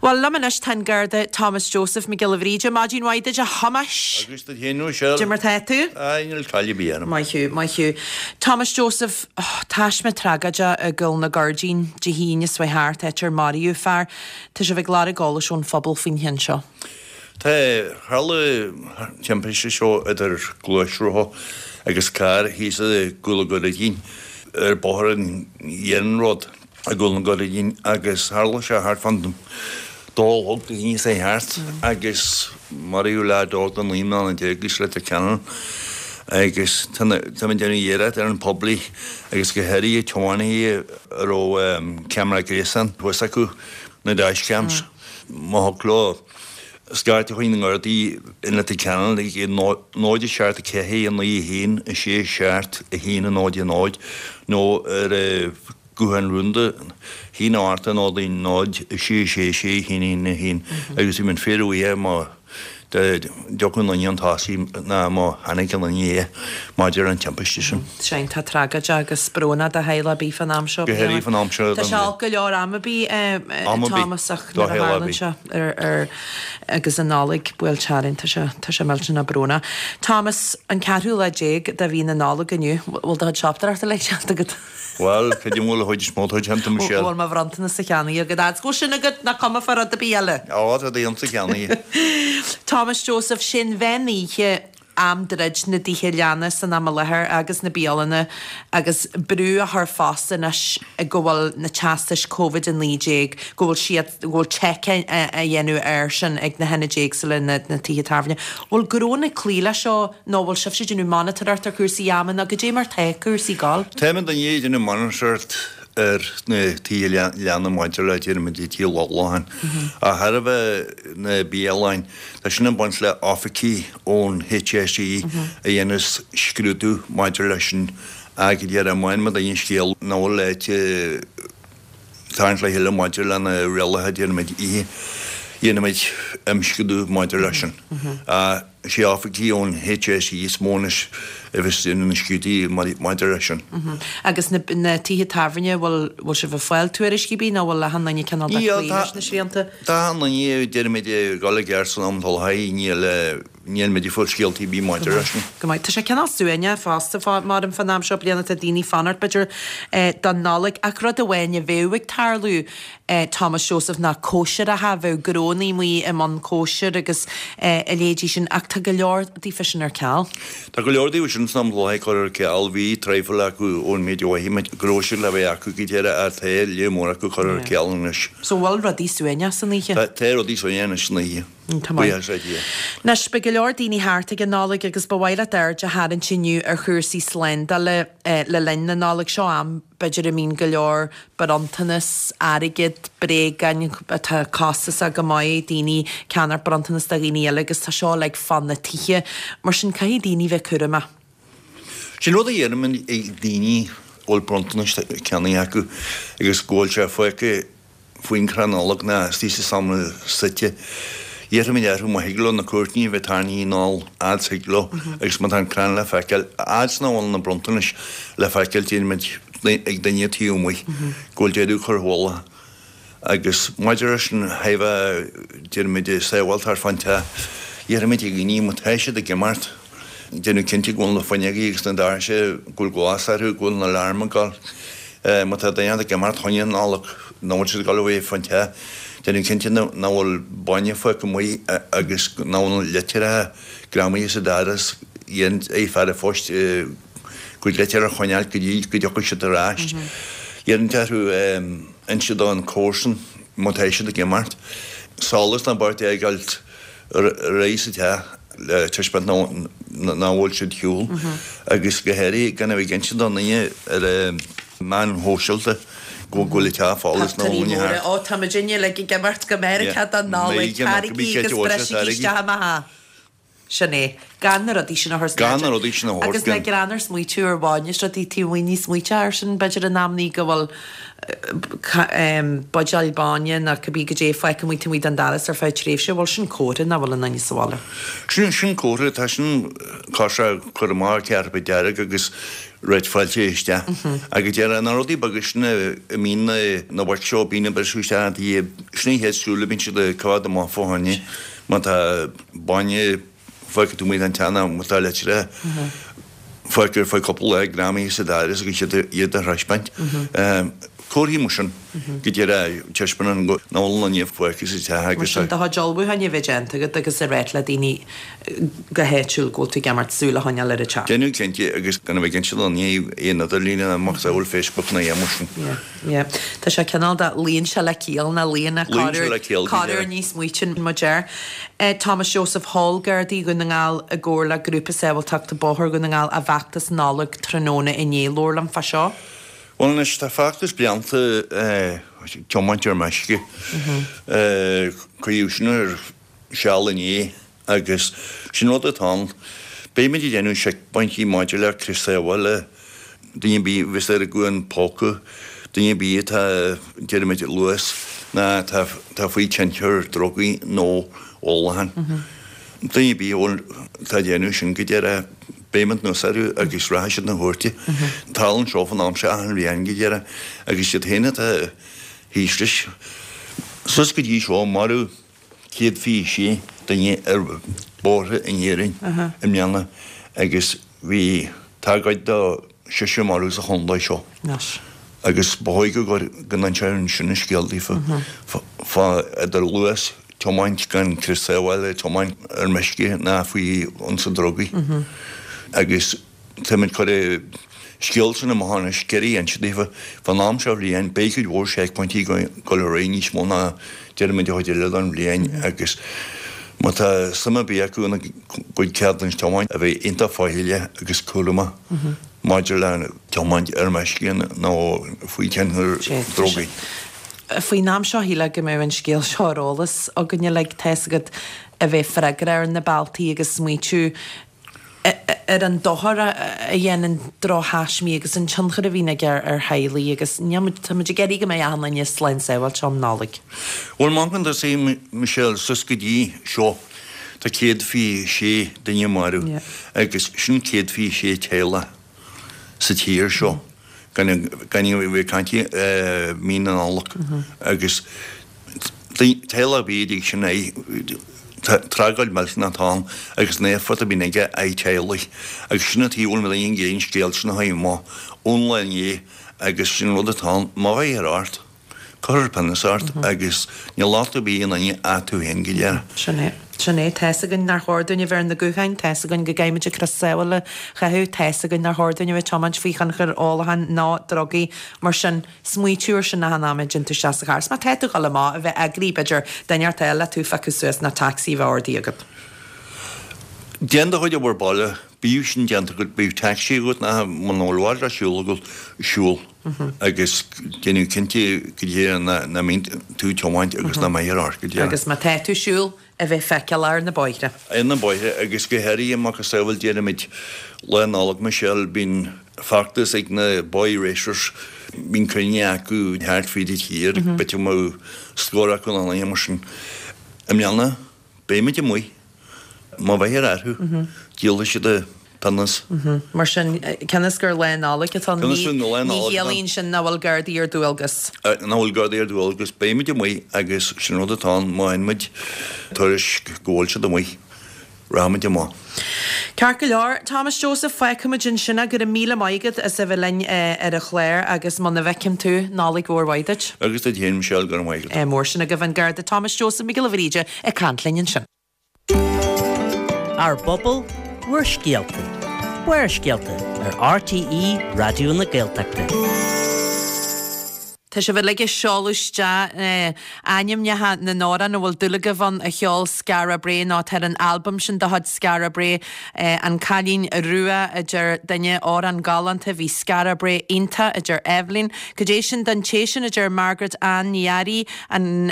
Speaker 1: Bhuel, liom anois tá an Garda Thomas Joseph Mac Giolla Bhríde. Maidin mhaith duit, a Thomáis.
Speaker 5: Agus duit féin, Michelle.
Speaker 1: Cad é mar tá tú?
Speaker 5: Aye, níl caill ar bith orm.
Speaker 1: Maith thú, maith thú. Thomas Joseph, taisme tragóideach i gCúl na Gairdín Dé hAoine seo thart, áit ar maraíodh fear. Tá sibh ag lorg eolais ón phobal faoin cheann seo.
Speaker 5: Tá, tharla an timpiste seo idir gluaisrothar agus carr thíos i gCúl na Gairdín ar bóthar an iarnróid. i gCúl na Gairdín agus tharla sé thart fán dó a chlog Dé hAoine seo thart agus maraíodh leaid óg de 19 mbliana as Leitir Ceanainn agus táim ag déanamh iarracht ar an poiblí agus go háirithe tiománaithe a raibh ceamara gréasáin thuas acu na dash cams má thig leo scairt chuig na nGardaí i Leitir Ceanainn ag 0 7 4 9 1 6 7 1 0 0 nó ar Guthán rúnda, 1 8 0 0 6 6 6 1 1 1 agus bhí muid fíorbhuíoch má d'fhiuchadh an duine chun tosaigh ná má chonaic an duine é maidir an timpiste sin.
Speaker 1: Sea, iontach tragóideach agus brónach do theaghlach ar bith fán am seo
Speaker 5: Go háirithe fán am seo
Speaker 1: Tá sé olc go leor am ar bith, Thomas, ach nuair a tharlaíonn sé ar agus an Nollaig buailte orainn, tá sé tá sé millteanach brónach. Thomas, an ceathrú lá déag de mhí na Nollag inniu, bhfuil do chuid siopadóireachta uilig déanta agat?
Speaker 5: Bhuel, cad é an bhfuil a chuid is mó atá déanta, Michelle?
Speaker 1: Bhfuil mo bhronntanas-sa cheannaithe agat? Agus go bhfuil sin agat, nach cuma fá rud ar bith eile.
Speaker 5: Á, tá do dhéanta cheannaithe.
Speaker 1: Thomas Joseph, sé an mheán oíche. Am druid na dtithe leanna san am i láthair agus na bialanna agus brú á chur fosta anois go bhfuil na teastais Covid-19, go bhfuil siad, go bhfuil seiceáil á dhéanamh air sin ag na hionaid éagsúla, na tithe tábhairne. Bhfuil gnónna ag cloí leis seo nó bhfuil sibhse ag déanamh monatóireacht ar chúrsaí ama nó goidé mar tá cúrsaí ag gabháil?
Speaker 5: Táimid i ndiaidh déanamh monatóireacht ar na tithe leanna maidir le déarfaimid tithe ólacháin. Ach thairbhe na bialanna, tá sin ag baint le oifigigh ón HSE a dhéanas scrúdú maidir leis sin ach go díreach má fhaigheann muid aon scéal nach bhfuil ag tarraingt le chéile maidir le na rialacha déarfaimid oíche, dhéanfaimid imscrúdú maidir leis sin. Is é oifigigh ón HSE is mó anois a bheas ag déanamh na scrúduithe maidir leis sin.
Speaker 1: Agus na tithe tábhairne, bhfuil bhfuil sibh ag fáil tuairiscí ar bith nó bhfuil achan duine cineál de cloí leis na srianta?
Speaker 5: Tá achan duine, déarfaimid, ag dul i gceart san am atá le haghaidh, níl níl muid ag fáil scéaltaí ar bith maidir leis sin.
Speaker 1: Go maith. Tá sé cineál suaimhneach fosta mar fán am seo bliana, tá daoine ag fanacht b'fhéidir don Nollaig ach rud amháin a bheadh ag tarlú Thomas Joseph ná cóisireacha, bheadh gnónnaí amuigh i mbun cóisir agus a leithéidí sin ach tá go leor daofa sin ar ceal.
Speaker 5: Tá go leor daofa sin san am i láthair curtha ar ceal, bhí traidhfil acu ón méid a mhothaigh muid go raibh siad le bheith acu go deireadh ach tá lear mór acu curtha ar ceal anois.
Speaker 1: So bhfuil rudaí suaimhneach san oíche?
Speaker 5: Tá rudaí suaimhneach anois san oíche.
Speaker 1: Tá maith.
Speaker 5: Buíochas le Dia.
Speaker 1: Anois, beidh go leor daoine thart ag an Nollaig agus ba mhaith leat aird a tharraingt inniu ar chúrsaí slándála le linn na Nollag. Seo am, b'fhéidir, a mbíonn go leor bronntanas, airgead, bréagáin atá costasach go maith, daoine ag ceannacht bronntanas do dhaoine eile agus tá seo uilig fá na tithe. Mar sin, caithfidh daoine bheith cúramach.
Speaker 5: Sin rud a dheirim ag daoine a bhfuil bronntanais ceannaithe acu agus go bhfuil sé fágtha faoin chrann Nollag ná istigh sa seomra suite. Iarraimid orthu má thig leo na cúirtíní a bheith tarraingthe anall fhad is thig leo agus má tá an crann le feiceáil, fhad is nach bhfuil na bronntanais le feiceáil déarfaimid ag duine taobh amuigh go bhfuil deireadh curtha chuile agus maidir leis an thaobh déarfaimid sábháilteacht fán teach, iarraimid ar dhaoine má tá siad ag imeacht déanamh cinnte go bhfuil na fuinneogaí agus na doirse, go bhfuil glas orthu, go bhfuil na aláraim ag gabháil. Má tá duine ag imeacht fá choinne Nollag, nach bhfuil siad ag dul a bheith fán teach, déanamh cinnte nach bhfuil bainne fágtha amuigh agus nach bhfuil na litreacha greamaithe sa doras, iarraimid ar fear an phoist a gcuid litreacha a choinneáil go dtí go dtiocfaidh siad ar ais. Iarraimid orthu inse don chomharsan má tá siad ag imeacht. Solas ná beart a fhágáil ar aghaidh sa teach le taispeáint nach bhfuil siad ar shiúl agus go háirithe gan a bheith ag inse do dhaoine ar na meáin shóisialta go bhfuil an teach folamh is nach bhfuil aoinne thart.
Speaker 1: Ó, tá muidinne uilig ag imeacht go Meiriceá don Nollaig, tarraingí agus brisigí isteach i mo theach. Sin é. Gan na rudaí sin a chur san
Speaker 5: Gan na rudaí sin a thabhairt.
Speaker 1: Agus le greann ar smaoitiú ar bhainne is rudaí taobh amuigh ní smaoiteá air sin b'fhéidir in amannaí go bhfuil buidéal bainne nó cibé goidé fágtha amuigh taobh amuigh den doras ar feadh tréimhse, bhfuil sin comhartha nach bhfuil aon duine sa bhaile?
Speaker 5: Sin, sin comhartha, tá sin cosúil le cur amach cairbid dearg agus rith fáilte isteach. Agus deir na rudaí beaga sin a mbíonn na, na boic seo, bíonn ag briseadh isteach ina dtithe, sin an chéad súil a bíonn siad ag coimhéad amach fá choinne má tá bainne fágtha taobh amuigh den teach nó má tá litreacha fágtha ar feadh cúpla lá greamaithe sa doras agus iad iad a thaispeáint. Comharthaí mar sin go díreach taispeánann go nach bhfuil aon duine fágtha sa teach
Speaker 1: Mar
Speaker 5: agus
Speaker 1: sin do chuid ullmhúcháin a bheith déanta agat agus a ráit le daoine go háitiúil go bhfuil tú ag imeacht súil a choinneáil ar an teach.
Speaker 5: Déanamh cinnte agus gan a bheith ag inse do dhaoine ar an idirlíon ná macasamhail Facebook ná aon mar sin.
Speaker 1: Yeah. Yeah. Tá sé cineál de, luíonn sé le ciall ná luíonn a
Speaker 5: Luíonn sé le ciall, go
Speaker 1: corruair
Speaker 5: deimhin.
Speaker 1: ní smaoitíonn muid air. Thomas Joseph Sheol Gardaí Dhún na nGall i gcomhar le Grúpa Sábháilteachta Bóthair Dhún na nGall a bhfeachtas Nollag tráthnóna inné. Labhair liom fá seo.
Speaker 5: Bhuel anois, tá feachtas blianta tiomáint ar meisce. Cuireadh sin ar seal inné. Agus sin rud atá ann. Beimid ag déanamh seicphointí maidir le crios sábhála, duine ar bith a bheas ar a ghuthán póca, duine ar bith atá, déarfaimid, luas ná atá faoi tionchar drugaí nó ólacháin. Duine ar bith a bhfuil, atá ag déanamh sin go díreach, beimid anuas orthu agus rachaidh siad 'na chúirte. Tarlaíonn seo fan am seo achan bhliain go díreach agus iad féin atá thíos leis. Suas go dtí seo, maraíodh. 126 duine ar bhóithre in Éirinn i mbliana agus bhí tragóid do seisear marbh sa chontae seo. Agus ba chóir go go n-inseoinn sin an scéal daofa fá idir luas. tiomáint gan crios sábhála, tiomáint ar meisce ná faoi thionchar drugaí. Agus táimid ag cur an scéal sin amach anois, ag iarraidh inse daofa, fán am seo bhliain, beidh cuid mhór seicphointí ag dul ar aghaidh níos mó ná déarfaimid an chuid eile den bhliain agus má tá suim ar bith acu ina gcuid ceadúnas tiomáint, a bheith iontach faichilleach agus cúramach maidir le tiomáint ar meisce nó faoi thionchar drugaí.
Speaker 1: Faoin am seo shílfeá go mbeadh an scéal seo ar eolas againn uilig, tá's agat, a bheith freagrach ar na bealtaí agus smaoitiú ar an dochar a dhéanann drochthaismí agus an tionchar a bhíonn aige ar theaghlaigh agus níl muid, tá muid ag iarraidh go mbeidh achan duine slán sábháilte um Nollaig.
Speaker 5: Bhuel, má amharcann tusa, Michelle, suas go dtí seo, tá 126 duine marbh agus sin 126 teaghlach sa tír seo. Gan gan a bheith ag caint i mí na Nollag agus teaghlach ar bith a dtig sin é tragóid millteanach atá ann agus an éifeacht a bhíonn aige ar theaghlaigh agus sin an tuige a bhfuil muid ag iarraidh an scéal sin a chur amach ón lá inné agus sin rud atá ann má bheifear ort. Cuirfear pionós ort agus níl locht ar bith ar aon duine ach tú féin go díreach.
Speaker 1: Sin é. Sin é. Tá's againn nár chóir dúinn a bheith ar na gutháin, tá's againn go gcaithfimid an crios sábhála a chaitheamh, tá's againn nár chóir dúinn a bheith ag tiomáint faoi thionchar ólacháin ná drugaí. Mar sin, smaoitiú ar sin achan am a dtéann tú isteach sa charr. Is má tá tú ag dul amach, a bheith eagraithe, b'fhéidir, duine inteacht a fháil le tú a phiocadh suas ná tacsaí a bheith ordaithe agat.
Speaker 5: Déan do chuid obair baile, bíodh sin déanta agat, bíodh tacsaí agat ná muna bhfuil i bhfad le siúl agat, siúl. agus déanamh cinnte go díreach nach mbíonn tú ag tiomáint agus nach mbeifear ort go díreach.
Speaker 1: Agus má tá tú ag siúl, a bheith feiceálach ar na bóithre.
Speaker 5: Ar na bóithre agus go háirithe macasamhail déarfaimid Lá Nollag Michelle bíonn feachtas ag na Boy Racers, bíonn cruinnithe acu thart fríd an tír, b'fhéidir go mbeadh scór acu nó mar sin. I mbliana Beimid amuigh. Má bheifear orthu, díolfaidh siad an pionós.
Speaker 1: Mar sin, cionn is gur Lá Nollag atá ann, ní chiallaíonn sin nach bhfuil Gardaí ar dualgas.
Speaker 5: Nach bhfuil Gardaí ar dualgas. Beimid amuigh agus sin rud atá ann, má fhaigheann muid tuairisc go bhfuil siad amuigh, rachaimid amach.
Speaker 1: Ceart go leor, Thomas Joseph, fágfaimid ansin é. Go raibh míle maith agat as a bheith linn ar an chlár agus muna bhfeicim tú, Nollaig mhór mhaith duit.
Speaker 5: Agus duit féin, Michelle, go raibh maith agat.
Speaker 1: Ádh mór sin agaibh, an Garda Thomas Joseph Mac Giolla Bhríde ag caint linn ansin.
Speaker 3: Ár bpobal, bhur scéalta. Barrscéalta ar RTÉ Raidió na Gaeltachta.
Speaker 1: Tá sibh uilig ag seoladh isteach ainmneacha na n-amhrán a bhfuil dúil agaibh ann a cheol Skara Brae nó atá ar an albam sin de chuid Skara Brae, An Cailín Rua, a deir duine, amhrán galánta, bhí Skara Brae iontach, a deir Eibhlín. Cad é sin don té sin, a deir Margaret Ann Ní Fhearraigh, an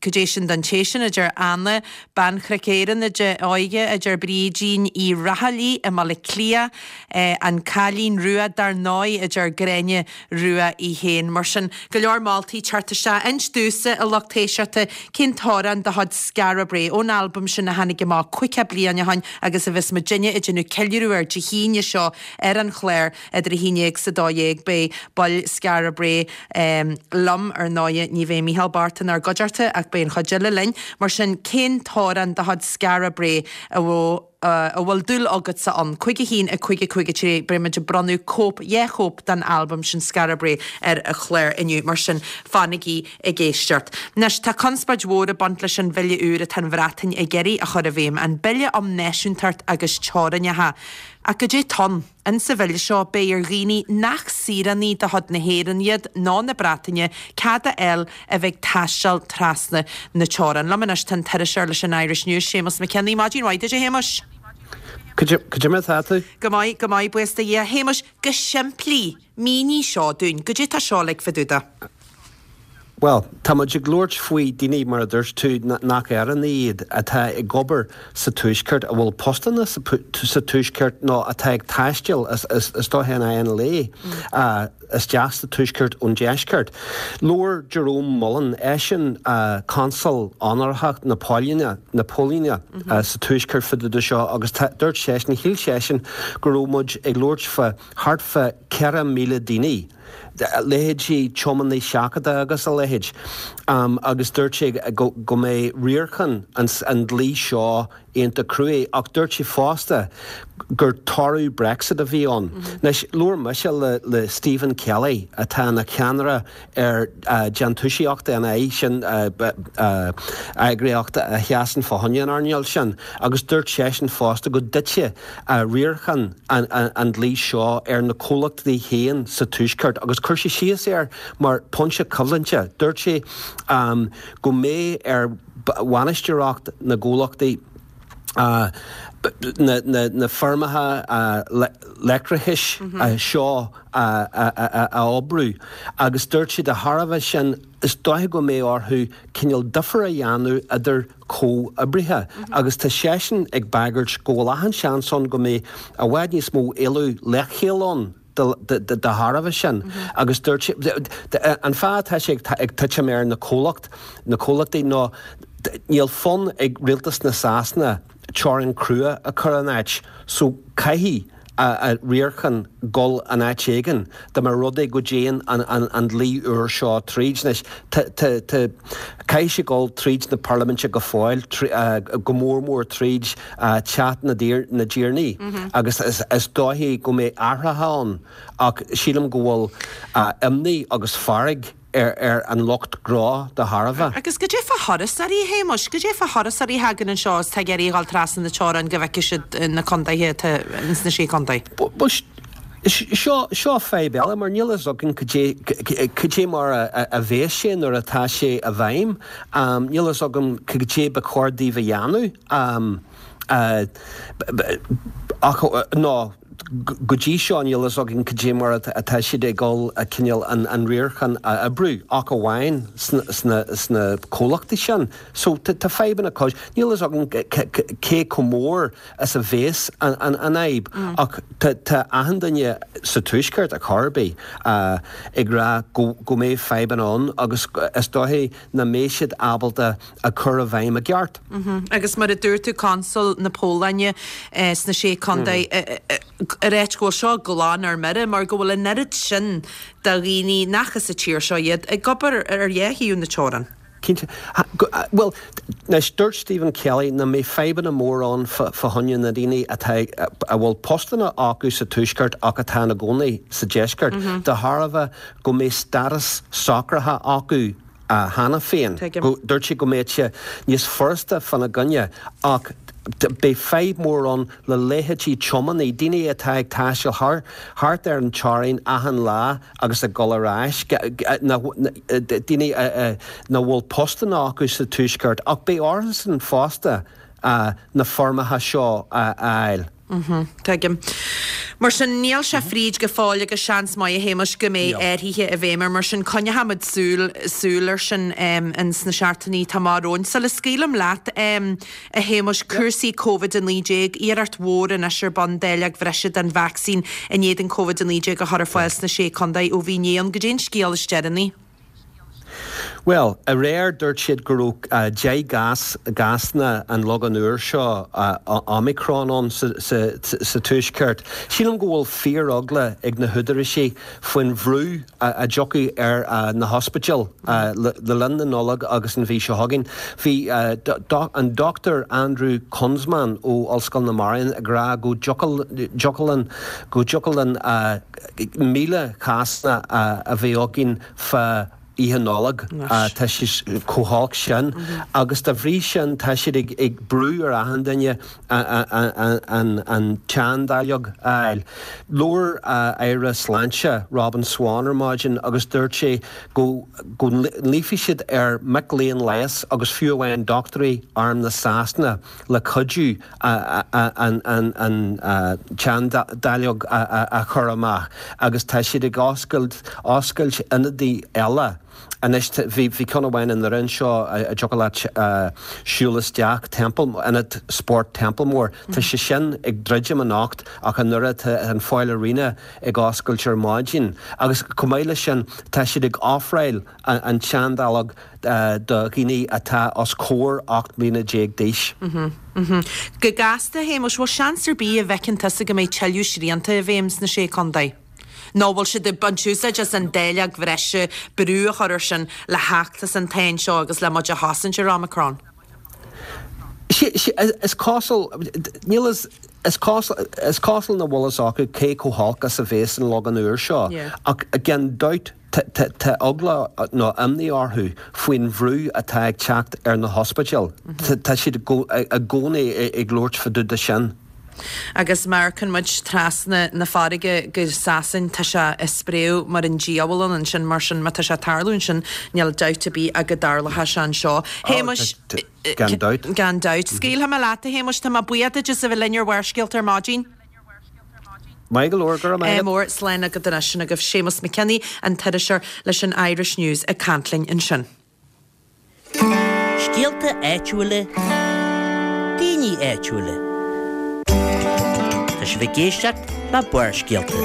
Speaker 1: Cad é sin don té sin, a deir Anna, Bean Chnoic Éireann Óige, a deir Brídín Uí Raghallaigh i mBaile Átha Cliath, An Cailín Rua dar ndóigh, a deir Gráinne Rua í féin. Mar sin, go leor moltaí ag teacht isteach. Inis domhsa, a lucht éisteachta, cén t-amhrán de chuid Skara Brae, ón albam sin a tháinig amach caoga bliain ó shin agus a bheas muidinne ag déanamh ceiliúradh air Dé hAoine seo ar an chlár idir 11 's 12. Beidh baill Skara Brae liom, ar ndóighe, ní bheidh Micheál bocht inár gcuideachta ach beidh an chuid eile linn. Mar sin, cén t-amhrán de chuid Skara Brae a bhfuil. a bhfuil dúil agatsa ann. 5 1 5 5 3 Beidh muid ag bronnadh cóip, dhá chóip den albam sin Skara Brae ar an chlár inniu, mar sin fanaigí ag éisteacht. Anois, tá conspóid mhór ag baint leis an bhille úr atá an Bhreatain ag iarraidh a chur i bhfeidhm, an Bille um Náisiúntacht agus Teorainneacha. Ach goidé tá ann? Insa bhille seo, beidh ar dhaoine nach saoránaigh de chuid na hÉireann iad ná na Breataine cead a fháil a bheith ag taisteal trasna na teorann. Liom anois tá an t-iriseoir leis an Irish News, Séamus Mac Cionnaith. Maidin mhaith duit, a Shéamuis.
Speaker 6: Cad é mar atá tú?
Speaker 1: Go maith, go maith, buíochas do Dhia. A Shéamuis, go simplí, mínigh seo dúinn. Goidé tá seo uilig fá dtaobh de?
Speaker 6: Bhuel, tá muid ag labhairt faoi daoine, mar a dúirt tú, nach Éireannaigh iad, atá ag obair sa Tuaisceart, a bhfuil postanna sa Tuaisceart nó atá ag taisteal, is dóiche in aghaidh an lae, isteach sa Tuaisceart ón Deisceart. Labhair Jerome Mullen, eisean Consal Onórach na Polainne, na Polainne sa Tuaisceart fá dtaobh de seo agus dúirt seisean, shíl seisean go raibh muid ag labhairt fá thart fá 4,000 daoine, leithéidí tiománaí seachadta agus a leithéid, agus dúirt sé go mbeidh riarachán an dlí seo iontach cruaidh ach dúirt sé fosta gur toradh Brexit a bhí ann. Anois, labhair mise le Stephen Kelly atá ina cheannaire ar Déantúsaíocht NI, sin eagraíocht a sheasann fá choinne an earnáil sin, agus dúirt seisean fosta go dtitfidh riarachán an dlí seo ar na comhlachtaí féin sa Tuaisceart agus chuir sé síos air mar pointe coimhlinte. Dúirt sé go mbeidh ar bhainisteoireacht na gcomhlachtaí na feirmeacha leictreachais seo a oibriú agus dúirt sé de thairbhe sin is dóiche go mbeidh orthu cineál difear a dhéanamh idir comhoibrithe agus tá seisean ag bagairt go bhfuil achan seans ann go mbeidh i bhfad níos mó éileamh leithcheal ann de thairbhe sin agus dúirt sé an fáth atá sé ag titim ar na comhlacht na comhlachtaí ná níl fonn ag rialtas na Sasana teorainn crua a chur in áit so caithfidh a riarachán dul in áit éigin dá mba rud é go dtéann an dlí úr seo tríd. Anois caithfidh sé dul tríd na parlaiminte go fóill, go mór mór tríd Teach na dTiarnaí agus is dóichí go mbeidh athruithe ann ach sílim go bhfuil imní agus fearg ar an lucht gnó de thairbhe.
Speaker 1: Agus goidé fá thurasóirí, a Shéamuis? Goidé fá thurasóirí a thagann anseo is tá ag iarraidh a dhul trasna na teorann go bhfeicfidh siad na contaetha atá ins na Sé Contae?
Speaker 6: Bhuel, seo, seo fadhb eile mar níl fhios againn cad é, cad é mar a bheas sé nuair atá sé i bhfeidhm. Níl fhios agam cad é ba chóir daoibh a dhéanamh. Ach, nó. Go dtí seo níl fhios againn cad é mar atá siad ag dul cineál an riarachán a oibriú, ach amháin sna comhlachtaí sin. So tá fadhbanna cois. Níl fhios againn cé chomh mór is a bhéas an fhadhb ach tá achan duine sa Tuaisceart, ar chor ar bith, ag rá go mbeidh fadhbanna ann agus is dóichí nach mbeidh siad ábalta a chur i bhfeidhm i gceart.
Speaker 1: Agus mar a dúirt tú, Consal na Polainne sna Sé Contae, ag ráit go bhfuil seo glan ar mire mar go bhfuil an oiread sin de dhaoine nach as an tír seo iad ag obair ar dhá thaobh na teorann.
Speaker 6: Cinnte. Bhuel, anois, dúirt Stephen Kelly nach mbeidh fadhbanna mór ann fá choinne na daoine atá, a bhfuil postanna acu sa Tuaisceart ach atá ina gcónaí sa Deisceart, de thairbhe go mbeidh stádas socraithe acu cheana féin. Dúirt sé go mbeadh sé níos furasta fána gcoinne ach beidh fadhb mhór ann le leithéidí tiománaí, daoine atá ag taisteal thart ar an teorainn achan lá agus ag dul ar ais, daoine nach bhfuil postanna acu sa Tuaisceart ach beidh orthusan fosta na foirmeacha seo a fháil.
Speaker 1: Tuigim. Mar sin, níl sé fríd go fóill agus seans maith, a Shéamais, go mbeidh athruithe i bhfeidhm air. Mar sin, coinneochaimid súil, súil air sin ins na seachtainí atá amach romhainn. Sula scaoilim leat, a Shéamais, cúrsaí Covid-19, iarracht mhór anois ar bun dáileog bhreise den vacsaín in éadan Covid-19 a chur ar fáil sna Sé Contae ó bhí inné ann. Goidé an scéal is deireanaí?
Speaker 6: Bhuel, aréir dúirt siad go raibh 10 gcás, gcásanna an logán úr seo, Omicron, ann sa Tuaisceart. Sílim go bhfuil fíor-eagla ag na húdaráisí faoin bhrú a dtiocfaidh ar na hospidéil le linn na Nollag agus an mhí seo chugainn. Bhí an Dr Andrew Kunzmann ó Ollscoil na Maighrean ag rá go dtiocfadh linn, go dtiocfadh linn 1,000 cásanna a bheith againn fá Oíche Nollag. Tá sé chomh holc sin agus dá bhrí sin tá siad ag brú ar achan duine an tseandáileog a fháil. Labhair Aire Sláinte Robin Swann ar maidin agus dúirt sé go nglaofaidh siad ar mhic léinn leighis agus fiú amháin dochtúirí Arm na Sasana le cuidiú an tseandáileog a chur amach agus tá siad ag oscailt oscailt ionadaí eile anois. Bhí ceann amháin i nDoire anseo a dtiocfadh leat siúl isteach, Temple, Ionad Spóirt Templemore. Tá sé sin ag druidim anocht ach i nDoire tá an Foyle Arena ag oscailt ar maidin agus chomh maith leis sin tá siad ag ofráil an tseandáileog do dhaoine atá os comhair 18 mbliana d'aois.
Speaker 1: Go gasta, a Shéamuis, bhfuil seans ar bith a bhfeiceann tusa go mbeidh tuilleadh srianta i bhfeidhm sna Sé Contae? Nó bhfuil siad ag baint úsáid as an dáileog bhreise, brú a chur air sin le theacht as an tsáinn seo agus le muid a chosaint ar Omicron?
Speaker 6: Is cosúil, níl fhios, is cosúil, is cosúil nach bhfuil fhios acu cé chomh holc is a bhéas an liogan úr seo, ach gan dabht tá eagla nó imní orthu faoin bhrú atá ag teacht ar na hospidéil. Tá siad i gcónaí ag labhairt fá dtaobh de sin.
Speaker 1: Agus má amharcann muid trasna na farraige go Sasain, tá sé ag spréadh mar an diabhal ann ansin, mar sin má tá sé ag tarlú ansin, níl dabht ar bith ach go dtarlóidh sé anseo. Shéamuis.
Speaker 6: Gan dabht.
Speaker 1: Gan dabht. Scaoilfidh mé leat, a Shéamuis, tá mé buíoch duit as a bheith linn ar Bharrscéalta ar maidin.
Speaker 6: Maith go leor, go raibh maith agat.
Speaker 1: Mór, slán agat anois. Sin agaibh Séamus McKinney, an t-iriseoir leis an Irish News ag caint linn ansin.
Speaker 3: Scéalta áitiúla, daoine áitiúla. Tá sibh ag éisteacht le Barrscéalta.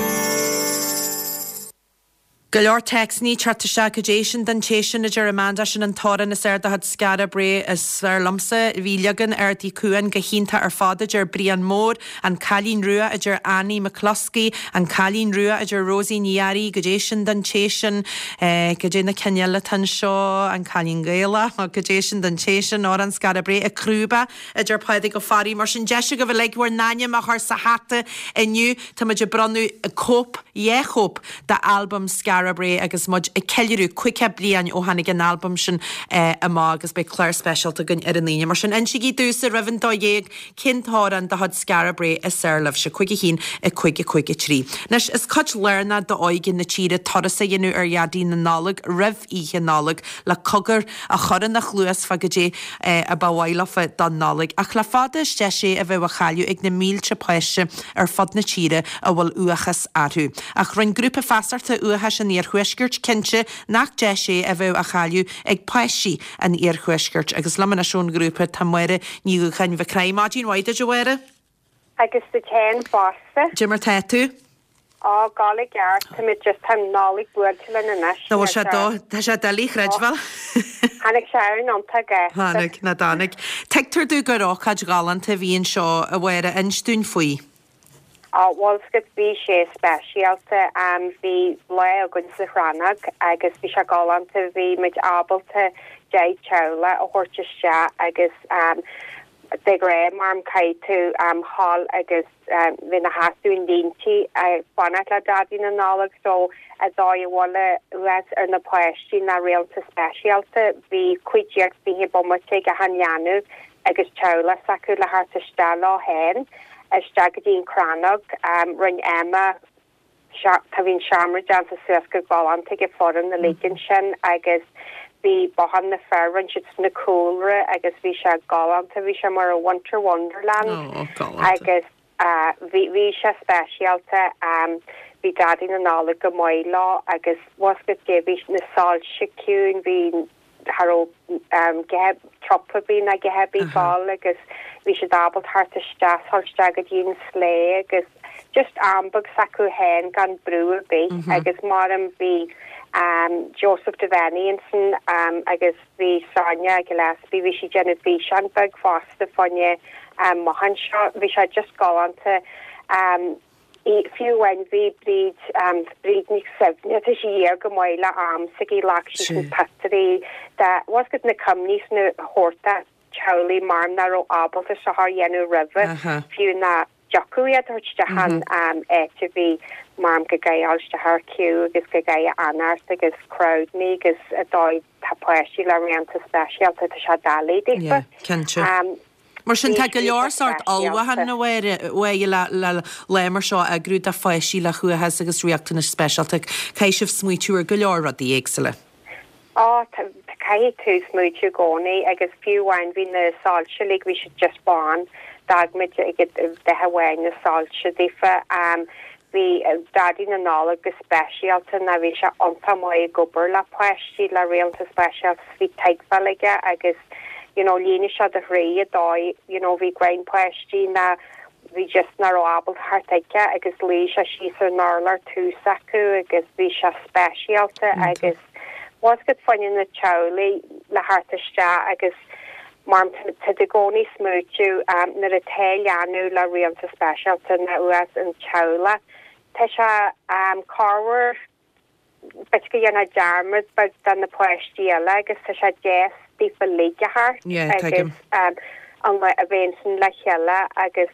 Speaker 1: Go leor téacsanna ag teacht isteach Goidé sin don té sin a deir Amanda sin an t-amhrán is fearr de chuid Skara Brae is fearr liomsa. Bhí leagan Ard Uí Cuan go hiontach ar fad a deir Brian Mór, An Cailín Rua a deir Annie McCluskey, An Cailín Rua a deir Rosie Ní Fhearraigh, Goidé sin don té sin, Goidé na cinn eile atá anseo, An Cailín Gaelach, Goidé sin don té sin, Amhrán Skara Brae, Ag Crúba a deir Pádraig Ó Fearraigh. Mar sin deis agaibh uilig bhur n-ainm a chur sa hata inniu. Tá muid ag bronnadh cóip, dhá chóip, d'albam Skara Brae agus muid ag ceiliúradh 50 bliain ó tháinig an albam sin amach agus beidh clár speisialta againn ar an Aoine. Mar sin, insígí domhsa roimh an 12 cén t-amhrán de chuid Skara Brae is fearr libhse, 5 1 5 5 3. Anois, is cuid lárnach d'óige na tíre turas a dhéanamh ar Dhaidí na Nollag roimh Oíche Nollag le cogar a chur ina chluas fá goidé a ba mhaith leofa don Nollaig. Ach le fada is deis é a bheadh á chailleadh ag na mílte páiste ar fud na tíre a bhfuil uathachas orthu. Ach rinne Grúpa Feasachta Uathachais an Iarthuaiscirt cinnte nach deis é a bheadh á chailleadh ag páistí an Iarthuaiscirt. Agus liom anois ón ghrúpa tá Máire Ní Dhúcháin Mhic Craith. Maidin mhaith duit a Mháire.
Speaker 7: Agus duit féin fosta.
Speaker 1: Cad é mar tá tú?
Speaker 7: Á, gabháil i gceart, táimid just, tá an Nollaig buailte linn anois.
Speaker 1: Nó bhfuil sé do, tá sé doiligh a chreidbheáil.
Speaker 7: Tháinig sé ann iontach gasta.
Speaker 1: Tháinig, ná dtáinig. Tuigtear domh gur ócáid ghalánta a bhí anseo, a Mháire, inis dúinn faoi.
Speaker 7: Á, bhuel, 's agat, bhí sé speisialta. Bhí lá againn sa Chrannóg agus bhí sé galánta, bhí muid ábalta 10 teaghlach a thabhairt isteach agus de ghnáth mar caithfidh tú a ghabháil agus bheith ina sheasamh in línte ag fanacht le Daidí na Nollag so an dóigh a bhfuil uathachas ar na páistí ná riachtanais speisialta bhí 15 20 bomaite ag achan leanbh agus teaghlach s'acu le theacht isteach leo féin isteach go dtí an Chrannóg rinne Emma Tá bhí an seomra déanta suas go galánta ag an foireann uilig ansin agus bhí bothán na fear, rinne siad sna cúlra agus bhí sé galánta, bhí sé mar a Winter Wonderland agus bhí bhí sé speisialta. Bhí Daidí na Nollag go maith leo agus bhfuil 's agat bhí na soilse ciúin, bhí cha raibh trup ar bith ná a dhath ar bith ag gabháil agus bhí siad ábalta theacht isteach, dhul isteach go dtí an sleigh agus just am beag s'acu féin gan brú ar bith agus maram bhí Joseph Devaney ansin agus bhí Sonia Gillespie, bhí sí ag déanamh físeán beag fosta fá choinne an bothán seo, bhí sé just galánta. Fiú amháin bhí Bríd, Bríd Nic Suibhne, tá sí thiar go maith le am s'aici, ghlac sí na pictiúirí de, bhfuil 's agat na cuimhní sna hórta teaghlaigh mar nach raibh ábalta seo a dhéanamh roimhe, fiú nach dtiocfadh iad a thabhairt isteach an áit a bhí mar go gcaithfidh dul isteach ar queue agus go gcaithfidh fanacht agus crowd-naí agus an dóigh tá páistí le riachtanais speisialta, tá sé doiligh daofa.
Speaker 1: Yeah, cinnte. Mar sin, tá go leor sórt ullmhúchán a Mháire le lá mar seo a eagrú do pháistí le huathachas agus riachtanais speisialta. Caithfidh sibh smaoitiú ar go leor rudaí éagsúla.
Speaker 7: Á, caithfidh tú smaoitiú i gcónaí agus fiú amháin bhí na soilse uilig, bhí siad just bán, d'fhág muid ag dath amháin na soilse daofa. Bhí Daidí na Nollag go speisialta ná bhí sé iontach maith ag obair le páistí le riachtanais speisialta bhí tuigbheáil aige agus you know líonadh sé do chroí an dóigh you know bhí greim páistí ná bhí just nach raibh ábalta theacht chuige agus luigh sé síos ar an urlár tús acu agus bhí sé speisialta agus bhfuil 's agat fá choinne na teaghlaigh le theacht isteach agus Mar tá tú i gcónaí ag smaoitiú nuair atá leanbh le riachtanais speisialta nó uathachas an teaghlach, tá sé corruair b'fhéidir go ndéanfá dearmad beag de na páistí eile agus tá sé deas daofa uilig a theacht agus. An lá a bheith ansin le chéile agus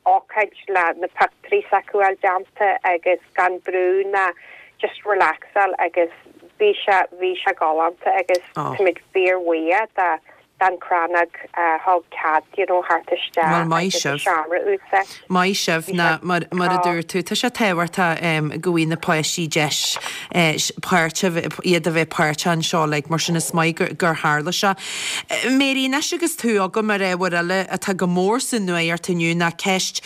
Speaker 7: ócáid le na pictiúirí s'acu a fháil déanta agus gan brú ná just relaxáil agus bhí sé, bhí sé galánta agus táimid fíor-bhuíoch de don Chrannóg a thug cead you know theacht isteach
Speaker 1: Bhuel maith
Speaker 7: agus an
Speaker 1: sibh.
Speaker 7: seomra a úsáid.
Speaker 1: Maith sibh
Speaker 7: Bhí
Speaker 1: ná
Speaker 7: sé
Speaker 1: mar mar a dúirt tú tá sé tábhachtach go bhfaighidh na páistí deis páirt a bheith iad a bheith páirteach anseo like mar sin is maith gur gur tharla sé. Mary anois agus tú agam ar ábhar eile atá go mór sa nuacht inniu ná ceist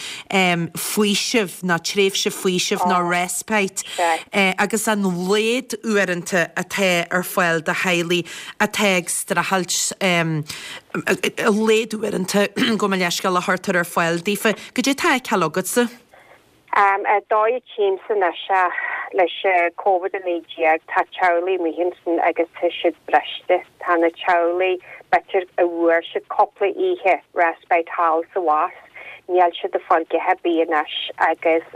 Speaker 1: faoisimh ná tréimhse faoisimh ná
Speaker 7: Ó
Speaker 1: respite
Speaker 7: sea.
Speaker 1: agus an laghad uaireanta atá ar fáil do theaghlaigh atá ag streachailt a laghad uaireanta gabh mo leithscéal a chuirtear ar fáil daofa. Goidé tá á fheiceáil agatsa?
Speaker 7: An dóigh a tchímse anois é leis Covid-19 tá teaghlaigh amuigh ansin agus tá siad briste. Tá na teaghlaigh b'fhéidir a bhfuair siad cúpla oíche respite thall sa bhus. Níl siad ag fáil a dhath ar bith anois agus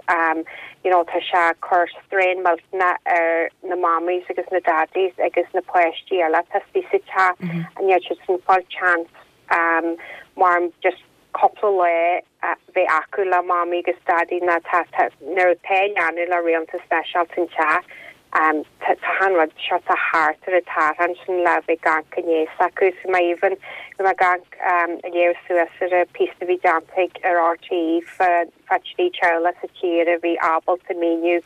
Speaker 7: you know tá sé ag cur strain millteanach ar na mammies agus na daddies agus na páistí eile atá istigh sa teach níl siad ag fáil chance mar just cúpla lá a bheith acu le mamaí agus daidí ná tá tá nuair atá leanbh le riachtanais speisialta an teach Tá an rud seo tá thart ar an tarrtháil sin le bheith ag amharc i ndiaidh s'acu. So má even bhí mé ag amharc ag léamh suas ar an píosa a bhí déanta ag ar RTÉ fá fá thrí teaghlach sa tír a bhí ábalta míniú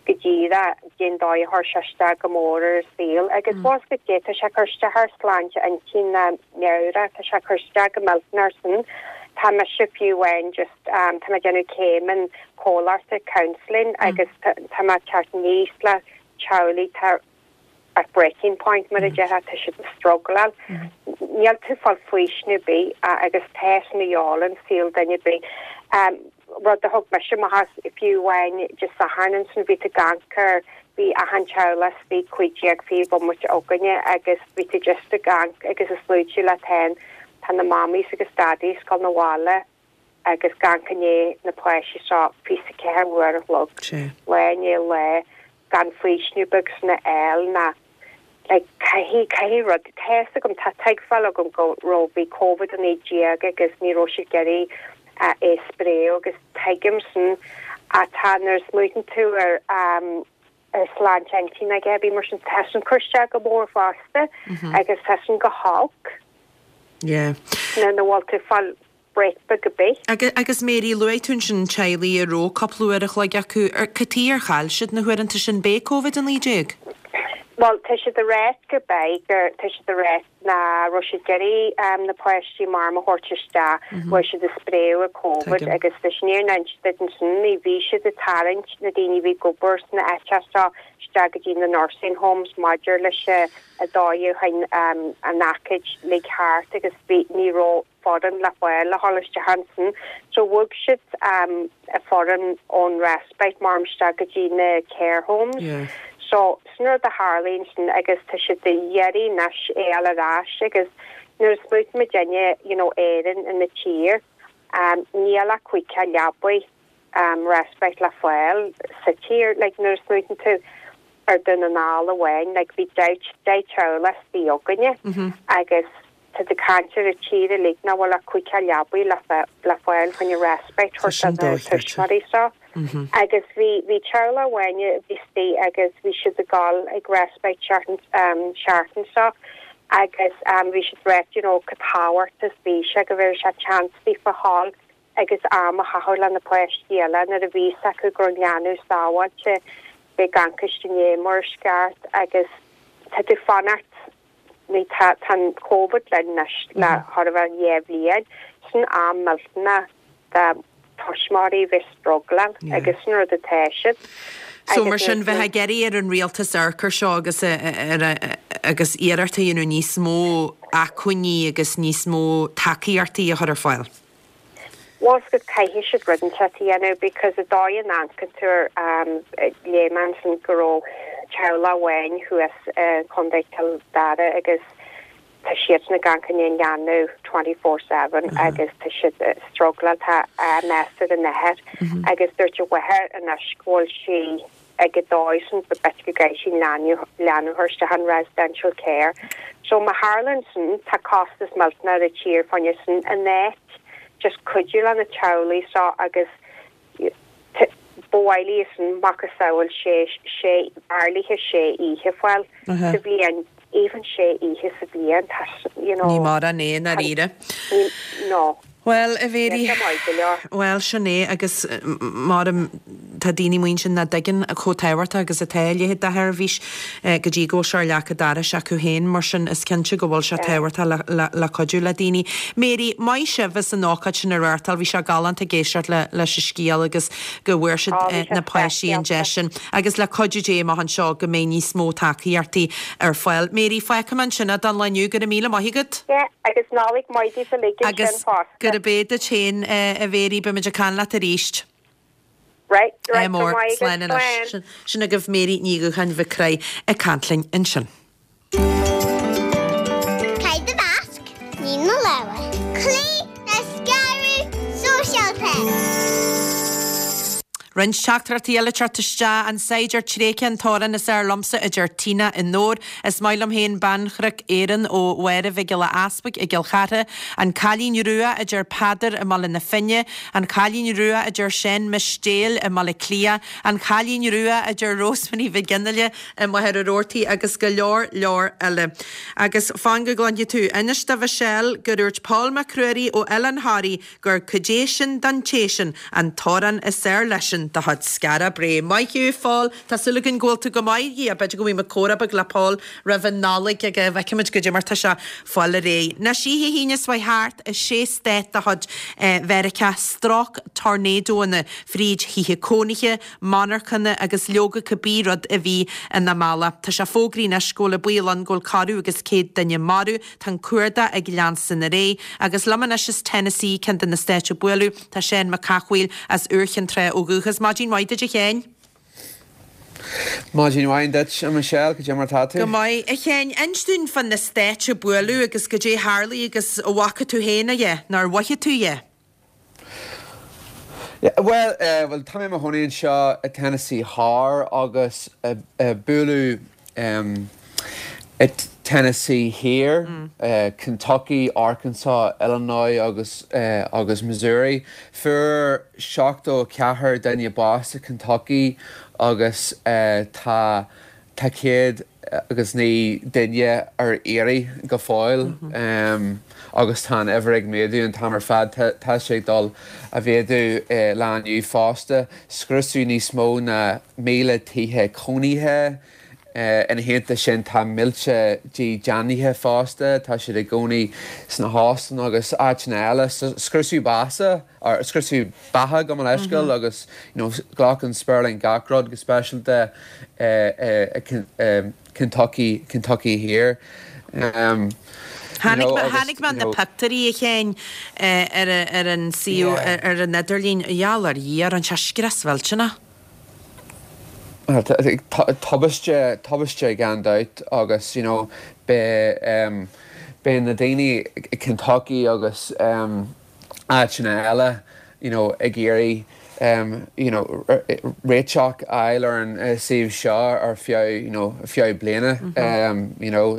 Speaker 7: go díreach cén dóigh a chuir sé isteach go mór ar a saol. Agus bhfuil a fhios agat tá sé ag cur isteach ar sláinte intinn ná meabhrach, tá sé ag cur isteach go millteanach ar sin. Tá mise fiú amháin just Tá mé ag déanamh céim in comhairleoireachta, counselling, agus tá mé ag teacht aníos le teaghlaigh atá at breaking point mar a déarfá, tá siad ag struggleáil. Níl tú ag fáil faoiseamh ar bith agus tá sin a dhíobháil an saol duine ar bith. Rud a thug mise amach as fiú amháin Dé Sathairn ansin bhí tú ag amharc ar bhí achan teaghlach istigh 15 20 bomaite againne agus bhí tú just ag amharc agus ag smaoitiú leat féin tá na mammies agus daddies ag gabháil 'na bhaile agus ag amharc i ndiaidh na páistí seo 24 uair a chlog, lá i ndiaidh lae, gan faoiseamh beag sin a fháil ná like caithfidh, caithfidh rud, tá fhios agam, tá tuigbheáil agam go raibh, bhí Covid-19 agus ní raibh siad ag iarraidh é a spréadh agus tuigim sin ach tá nuair a smaoitíonn tú ar ar sláinte intinne aige, bhí mar sin, tá sin ag cur isteach go mór fosta agus tá sin go holc.
Speaker 1: Yeah.
Speaker 7: Nuair nach bhfuil tú ag fáil break beag ar bith.
Speaker 1: Agus Mary, luaigh tú ansin teaghlaigh a raibh cúpla uair a chloig acu. Cad chuige ar chaill siad na huaireanta sin? B'é Covid-19?
Speaker 7: Bhuel, tá siad ag ráit go b'é gur, tá siad ag ráit nach raibh siad ag iarraidh na páistí mar a thabhairt isteach, bhfuil siad ag spréadh an Covid agus leis an fhírinne a inse duit ansin, ní bhí siad ag tarraingt na daoine a bhí ag obair sna áiteacha seo isteach go dtí na nursing homes maidir leis an dóigh a chuaigh an aicíd uilig thart agus bhí, ní raibh. foireann le fáil le dhul isteach ansin. So bhog siad a foireann ón respite mar isteach go dtí na care homes. So sin rud a tharlaigh ansin agus tá siad ag iarraidh anois é a fháil ar ais agus nuair a smaoitíonn muidinne you know Éirinn ina tír níl ach 50 leabaidh respite le fáil sa tír. Like nuair a smaoitíonn tú ar Dún na nGall amháin like bhí 10 teaghlach istigh againne agus Tá tú ag caint ar an tír uilig nach bhfuil ach 50 leabaidh le fáil chun respite a thabhairt do na tuismitheoirí seo. Agus bhí bhí teaghlach amháin a bhí istigh agus bhí siad ag dul ag respite seachtain seo agus bhí siad ag ráit you know chomh tábhachtach is bhí sé go bhfuair sé chance daofa dhul agus am a chaitheamh le na páistí eile nuair a bhí fhios acu go raibh an leanbh sábháilte bheith ag amharc ina ndiaidh mar is ceart agus tá tú fanacht Ní tá tá an Covid linn anois le chóir a bheith 2 bhliain. Sin am millteanach do tuismitheoirí bheith struggleáil agus sin rud atá siad.
Speaker 1: So mar sin bheith ag iarraidh ar an rialtas amharc air seo agus ar agus iarracht a dhéanamh níos mó acmhainní agus níos mó tacaíochtaí a chur ar fáil.
Speaker 7: Bhfuil fhios agat caithfidh siad rud inteacht a dhéanamh because an dóigh a n-amharcann tú ar léigh mé ansin go raibh teaghlach amháin thuas i Contae Chill Dara agus tá siadsan ag amharc i ndiaidh an leanbh 24/7 agus tá siad ag struggleáil tá mess ar an athair agus dúirt a mháthair anois go bhfuil sí. Ag an dóigh sin b'fhéidir go gcaithfidh sí leanbh a chur isteach in residential care. So má tharlaíonn sin, tá costas millteanach ar an tír fá choinne sin in áit just cuidiú le na teaghlaigh seo agus ba mhaith léi sin macasamhail sé sé b'fhearr léithe sé oíche fáil sa bhliain even sé oíche sa bhliain tá you know
Speaker 1: Ní mórán é i ndáiríre.
Speaker 7: No.
Speaker 1: Bhuel, a Mhéirí,
Speaker 7: Níl sé maith go leor.
Speaker 1: bhuel, sin é, agus maram, tá daoine amuigh ansin nach dtuigeann chomh tábhachtach agus atá a leithéid de sheirbhís go dtí go bhfuil sé ar leac an dorais acu féin, mar sin is cinnte go bhfuil sé tábhachtach le, le, le cuidiú le daoine. Mary, maith sibh as an ócáid sin a reáchtáil, bhí sé galánta ag éisteacht le, leis an scéal agus go bhfuair siad
Speaker 7: Ó, bhí sé
Speaker 1: na páistí an deis
Speaker 7: speisialta.
Speaker 1: sin. Agus le cuidiú Dé amach anseo go mbeidh níos mó tacaíochtaí ar fáil. Mary, fágfaidh mé ansin é don lá inniu. Go raibh míle maith agat.
Speaker 7: Yeah, agus Nollaig mhaith daoibh uilig ansin
Speaker 1: Agus
Speaker 7: fosta.
Speaker 1: gurb é duit féin, a Mhary, beimid ag caint leat arís.
Speaker 7: Right, right,
Speaker 1: Ádh
Speaker 7: go
Speaker 1: mór,
Speaker 7: maith
Speaker 1: slán
Speaker 7: agat,
Speaker 1: anois.
Speaker 7: slán.
Speaker 1: Sin agaibh Mary Ní Dhúcháin Mhic Craith ag caint linn ansin.
Speaker 8: Caith do mhasc, nigh do lámha. Cloígh le scaradh sóisialta.
Speaker 1: Roinnt teachtaireachtaí eile ag teacht isteach, An Saighdiúir Tréigthe an t-amhrán is fhearr liomsa, a deir Tina i nDobhar. Is maith liom féin Beannchnoc Éireann ó Mháire Mhic Giolla Easpaig i gCill Chartha. An Cailín Rua, a deir Peadar i mBaile na Finne. An Cailín Rua, a deir Seán Mistéil i mBaile Cliath. An Cailín Rua, a deir Rosemary Mhic Fhionnghaile i Machaire Rabhartaigh agus go leor leor eile. Agus fan go gcluinfidh tú. Inis do Mhichelle gur dhúirt Pól Mac Ruairí ó Oileán Thoraí gur Cad é sin don té sin an t-amhrán is fhearr leisean de chuid Skara Brae. Maith thú, Phól. Tá súil againn go bhfuil tú go maith. Dhia, b'fhéidir go bhfaighidh muid comhrá beag le Pól roimh an Nollaig agus feicfimid goidé mar tá sé fáil ar aghaidh. Anois oíche hAoine seo chuaigh thart i sé stát de chuid Mheiriceá, stróic tornádóanna fríd thithe cónaithe, monarchana agus leoga cibé rud a bhí ina mbealach. Tá sé fógraithe anois go bhfuil an baol ann go bhfuil corradh agus 100 duine marbh. Tá an cuardach ag leanstan ar aghaidh. Agus liom anois as Tennessee, ceann de na stáit a buaileadh, tá Seán Mac Cathmhaoil as Iúr Chinn Trá ó dhúchas. Maidin mhaith duit a Sheáin.
Speaker 9: Maidin mhaith duit, a Michelle, cad é mar tá tú?
Speaker 1: Go maith, a Sheáin. Inis dúinn fá na stáit a buaileadh agus goidé a tharlaigh agus an bhfaca tú féin é, nó ar mhothaigh tú é?
Speaker 9: Bhuel, bhuel, tá mé i mo chónaí anseo i Tennessee Thoir agus buaileadh i Tennessee Thiar, Kentucky, Arkansas, Illinois agus agus Missouri. Fuair 74 duine bás i Kentucky agus tá Tá 109 duine ar iarraidh go fóill agus tá an uimhir ag méadú an t-am ar fad. Tá sé ag dul a mhéadú lá inniu fosta. Scriosadh níos mó ná 1,000 tithe cónaithe. Ina theannta sin tá mílte dídeanaithe fosta. Tá siad i gcónaí sna hóstáin agus áiteanna eile. Scriosadh bása. or scriosadh beatha gabh mo leithscéal agus you know ghlac an spéirling gach rud go speisialta i Kentucky Kentucky Thiar um
Speaker 1: you know agus Chonaic mé na pictiúirí a Sheáin ar ar an suíomh ar an idirlíon gheall ar Dhia rinne sé scrios mhillteanach.
Speaker 9: Tubaiste tubaiste gan dabht agus you know beidh um beidh na daoine i Kentucky agus um áiteanna eile you know ag iarraidh you know réiteach a fháil ar an suíomh seo ar feadh you know feadh bliana you know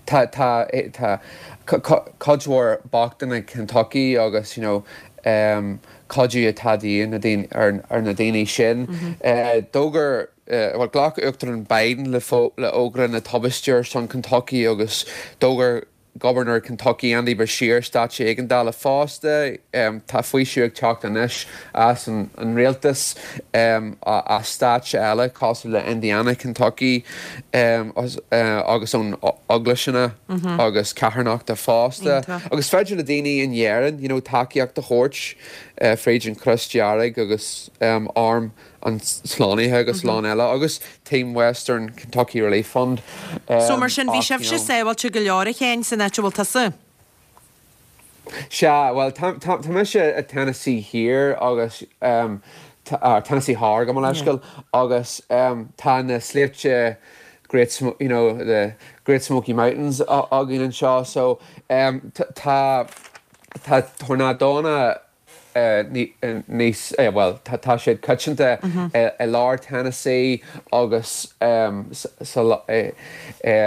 Speaker 9: tá tá tá cuid mhór bochtaine Kentucky agus you know cuidiú atá de dhíth na daoine ar na daoine sin. D'fhógair bhuel ghlac Uachtarán Biden le fógra na tubaiste ar son Kentucky agus d'fhógair Gobharnóir Kentucky Andy Beshear staid éigeandála fosta. Tá faoiseamh ag teacht anois as an rialtas as stáit eile cosúil le Indiana, Kentucky agus ón eaglaiseanna agus carthanachta fosta. Agus féidir le daoine in Éirinn you know tacaíocht a thabhairt fríd an Chros Dearg agus Arm an tSlánaithe agus a lán eile, agus Team Western Kentucky Relief Fund.
Speaker 1: So mar sin, bhí sibhse sábháilte go leor, a Sheáin, san áit a bhfuil tusa?
Speaker 9: Sea, bhuel, tá, tá, tá mise i Tennessee Thiar agus, Tennessee Thoir, gabh mo leithscéal, agus tá na sléibhte Great, you know, the Great Smoky Mountains againn anseo, so tá, tá tornádónna. níos, bhuel, tá siad coitianta i lár Tennessee agus sa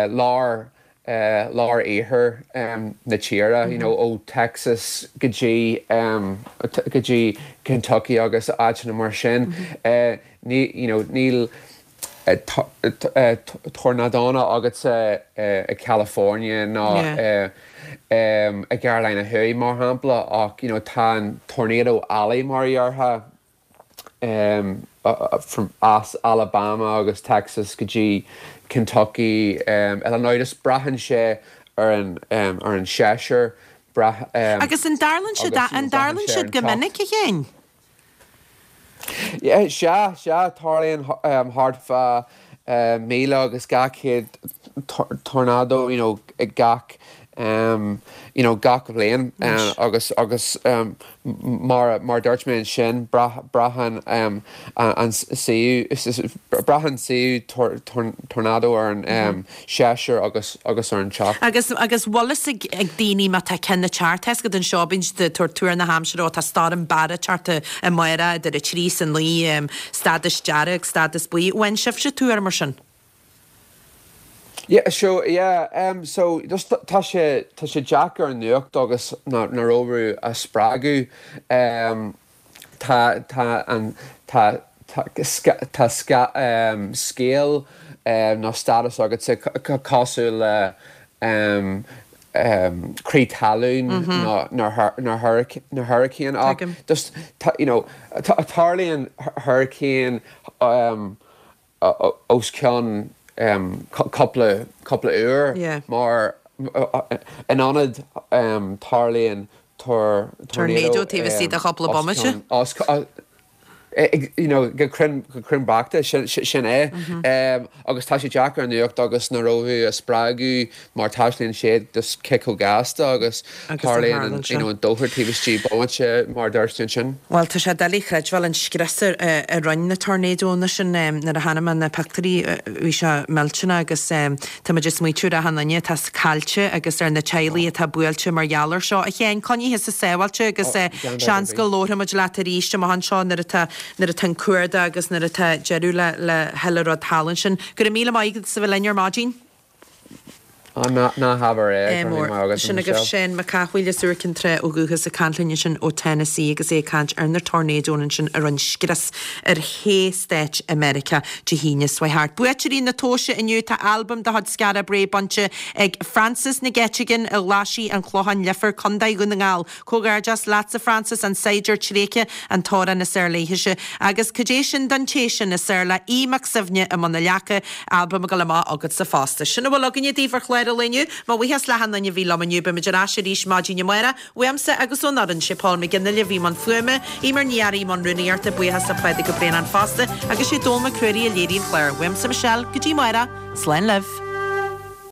Speaker 9: lár, lár iarthar na tíre, you know, ó Texas go dtí, go dtí Kentucky agus áiteanna mar sin. Ní, you know, níl tornádónna agatsa i California ná i gCarolina Thuaidh, mar shampla, ach, you know, tá an Tornado Alley, mar a déarfá, from as Alabama agus Texas go dtí Kentucky, Illinois, just braitheann sé ar an ar an séasúr,
Speaker 1: brath Agus an dtarlaíonn siad an dtarlaíonn siad go minic, a Sheáin?
Speaker 9: Yeah, sea, sea, tarlaíonn thart fá 1,000 agus 200 tornádó, you know, gach, you know, gach bhliain agus, agus mar, mar dúirt mé ansin, braitheann an suíomh, braitheann suíomh tornádó ar an séasúr agus, agus ar an teocht.
Speaker 1: Agus, agus bhfuil fhios ag, ag daoine má tá ceann ag teacht, tá fhios agat anseo, bíonn siad ag tabhairt tuar na haimsire, ó tá Storm Barra ag teacht amárach idir a 3 is a 9, stádas dearg, stádas buí. Bhfaigheann sibhse tuar mar sin?
Speaker 9: Yeah, so, yeah, um, so, just tá sé, tá sé deacair an nuacht agus na, na rómhú a spreagadh. Um, tá, tá an, tá, tá, tá sca, um, scéal, um, nó stádas agatsa cosúil le, um, um, crith talún nó, nó, nó hurricane, hurricane ach just, tá, you know, tarlaíonn hurricane, um, os cionn cúpla cúpla uair mar in ionad tarlaíonn
Speaker 1: tornado taobh istigh de chúpla bomaite.
Speaker 9: You know, go cruinn go cruinn beacht sin é agus tá sé deacair an nuacht agus na rabhaidh a spreagadh mar taistealaíonn siad just cé chomh gasta agus tarlaíonn an you know an dochar taobh istigh bomaite mar a dúirt tú ansin.
Speaker 1: Bhuel tá sé doiligh a chreidbheáil an scrios a rinne na tornadónna sin nuair a chonaic mé na pictiúirí bhí sé millteanach agus tá muid ag smaoitiú ar achan duine atá caillte agus ar na teaghlaigh atá buailte mar gheall ar seo. A Sheáin, coinnigh thusa sábháilte agus seans go labharfaidh muid leat arís amach anseo nuair atá nuair atá an cuardach agus nuair atá deireadh le le chuile rud thall ansin. Go raibh míle maith agat as a bheith linn ar maidin.
Speaker 9: Ná habair
Speaker 1: é, go raibh maith agat, Sin agaibh Seán Mac Cathmhaoil as Iúr Cinn Trá ó dhúchas ag caint linn ansin ó Tennessee agus é ag caint ar na tornadónna ansin a rinne scrios ar shé stáit i Meiriceá Dé hAoine seo thart. Buaiteoirí na tomhaise inniu tá albam de chuid Skara Brae bainte ag Frances Nic Eiteagáin i nGlaisigh an Chlocháin Leifear, Contae Dhún na nGall. Comhghairdeas leatsa Frances, An Saighdiúir Tréigthe, an t-amhrán is fhearr léithese. Agus cad é sin don té sin is fhearr le Aodh Mac Suibhne i mbun na leaca, albam ag dul amach agatsa fosta. Sin a bhfuil againne daoibh ar chlár an lae inniu. Mo bhuíochas le hachan duine a bhí liom inniu. Beimid ar ais arís maidin amárach. Uaimse agus ón fhoireann, sé Paul McGinley a bhí i mbun fuaime, Eimear Ní Fhearraigh i mbun rúnaíochta, buíochas le Pádraig Ó Braonáin fosta agus sé Dónall Mac Ruairí a léirigh an clár. Uaimse Michelle, go dtí amárach, slán libh.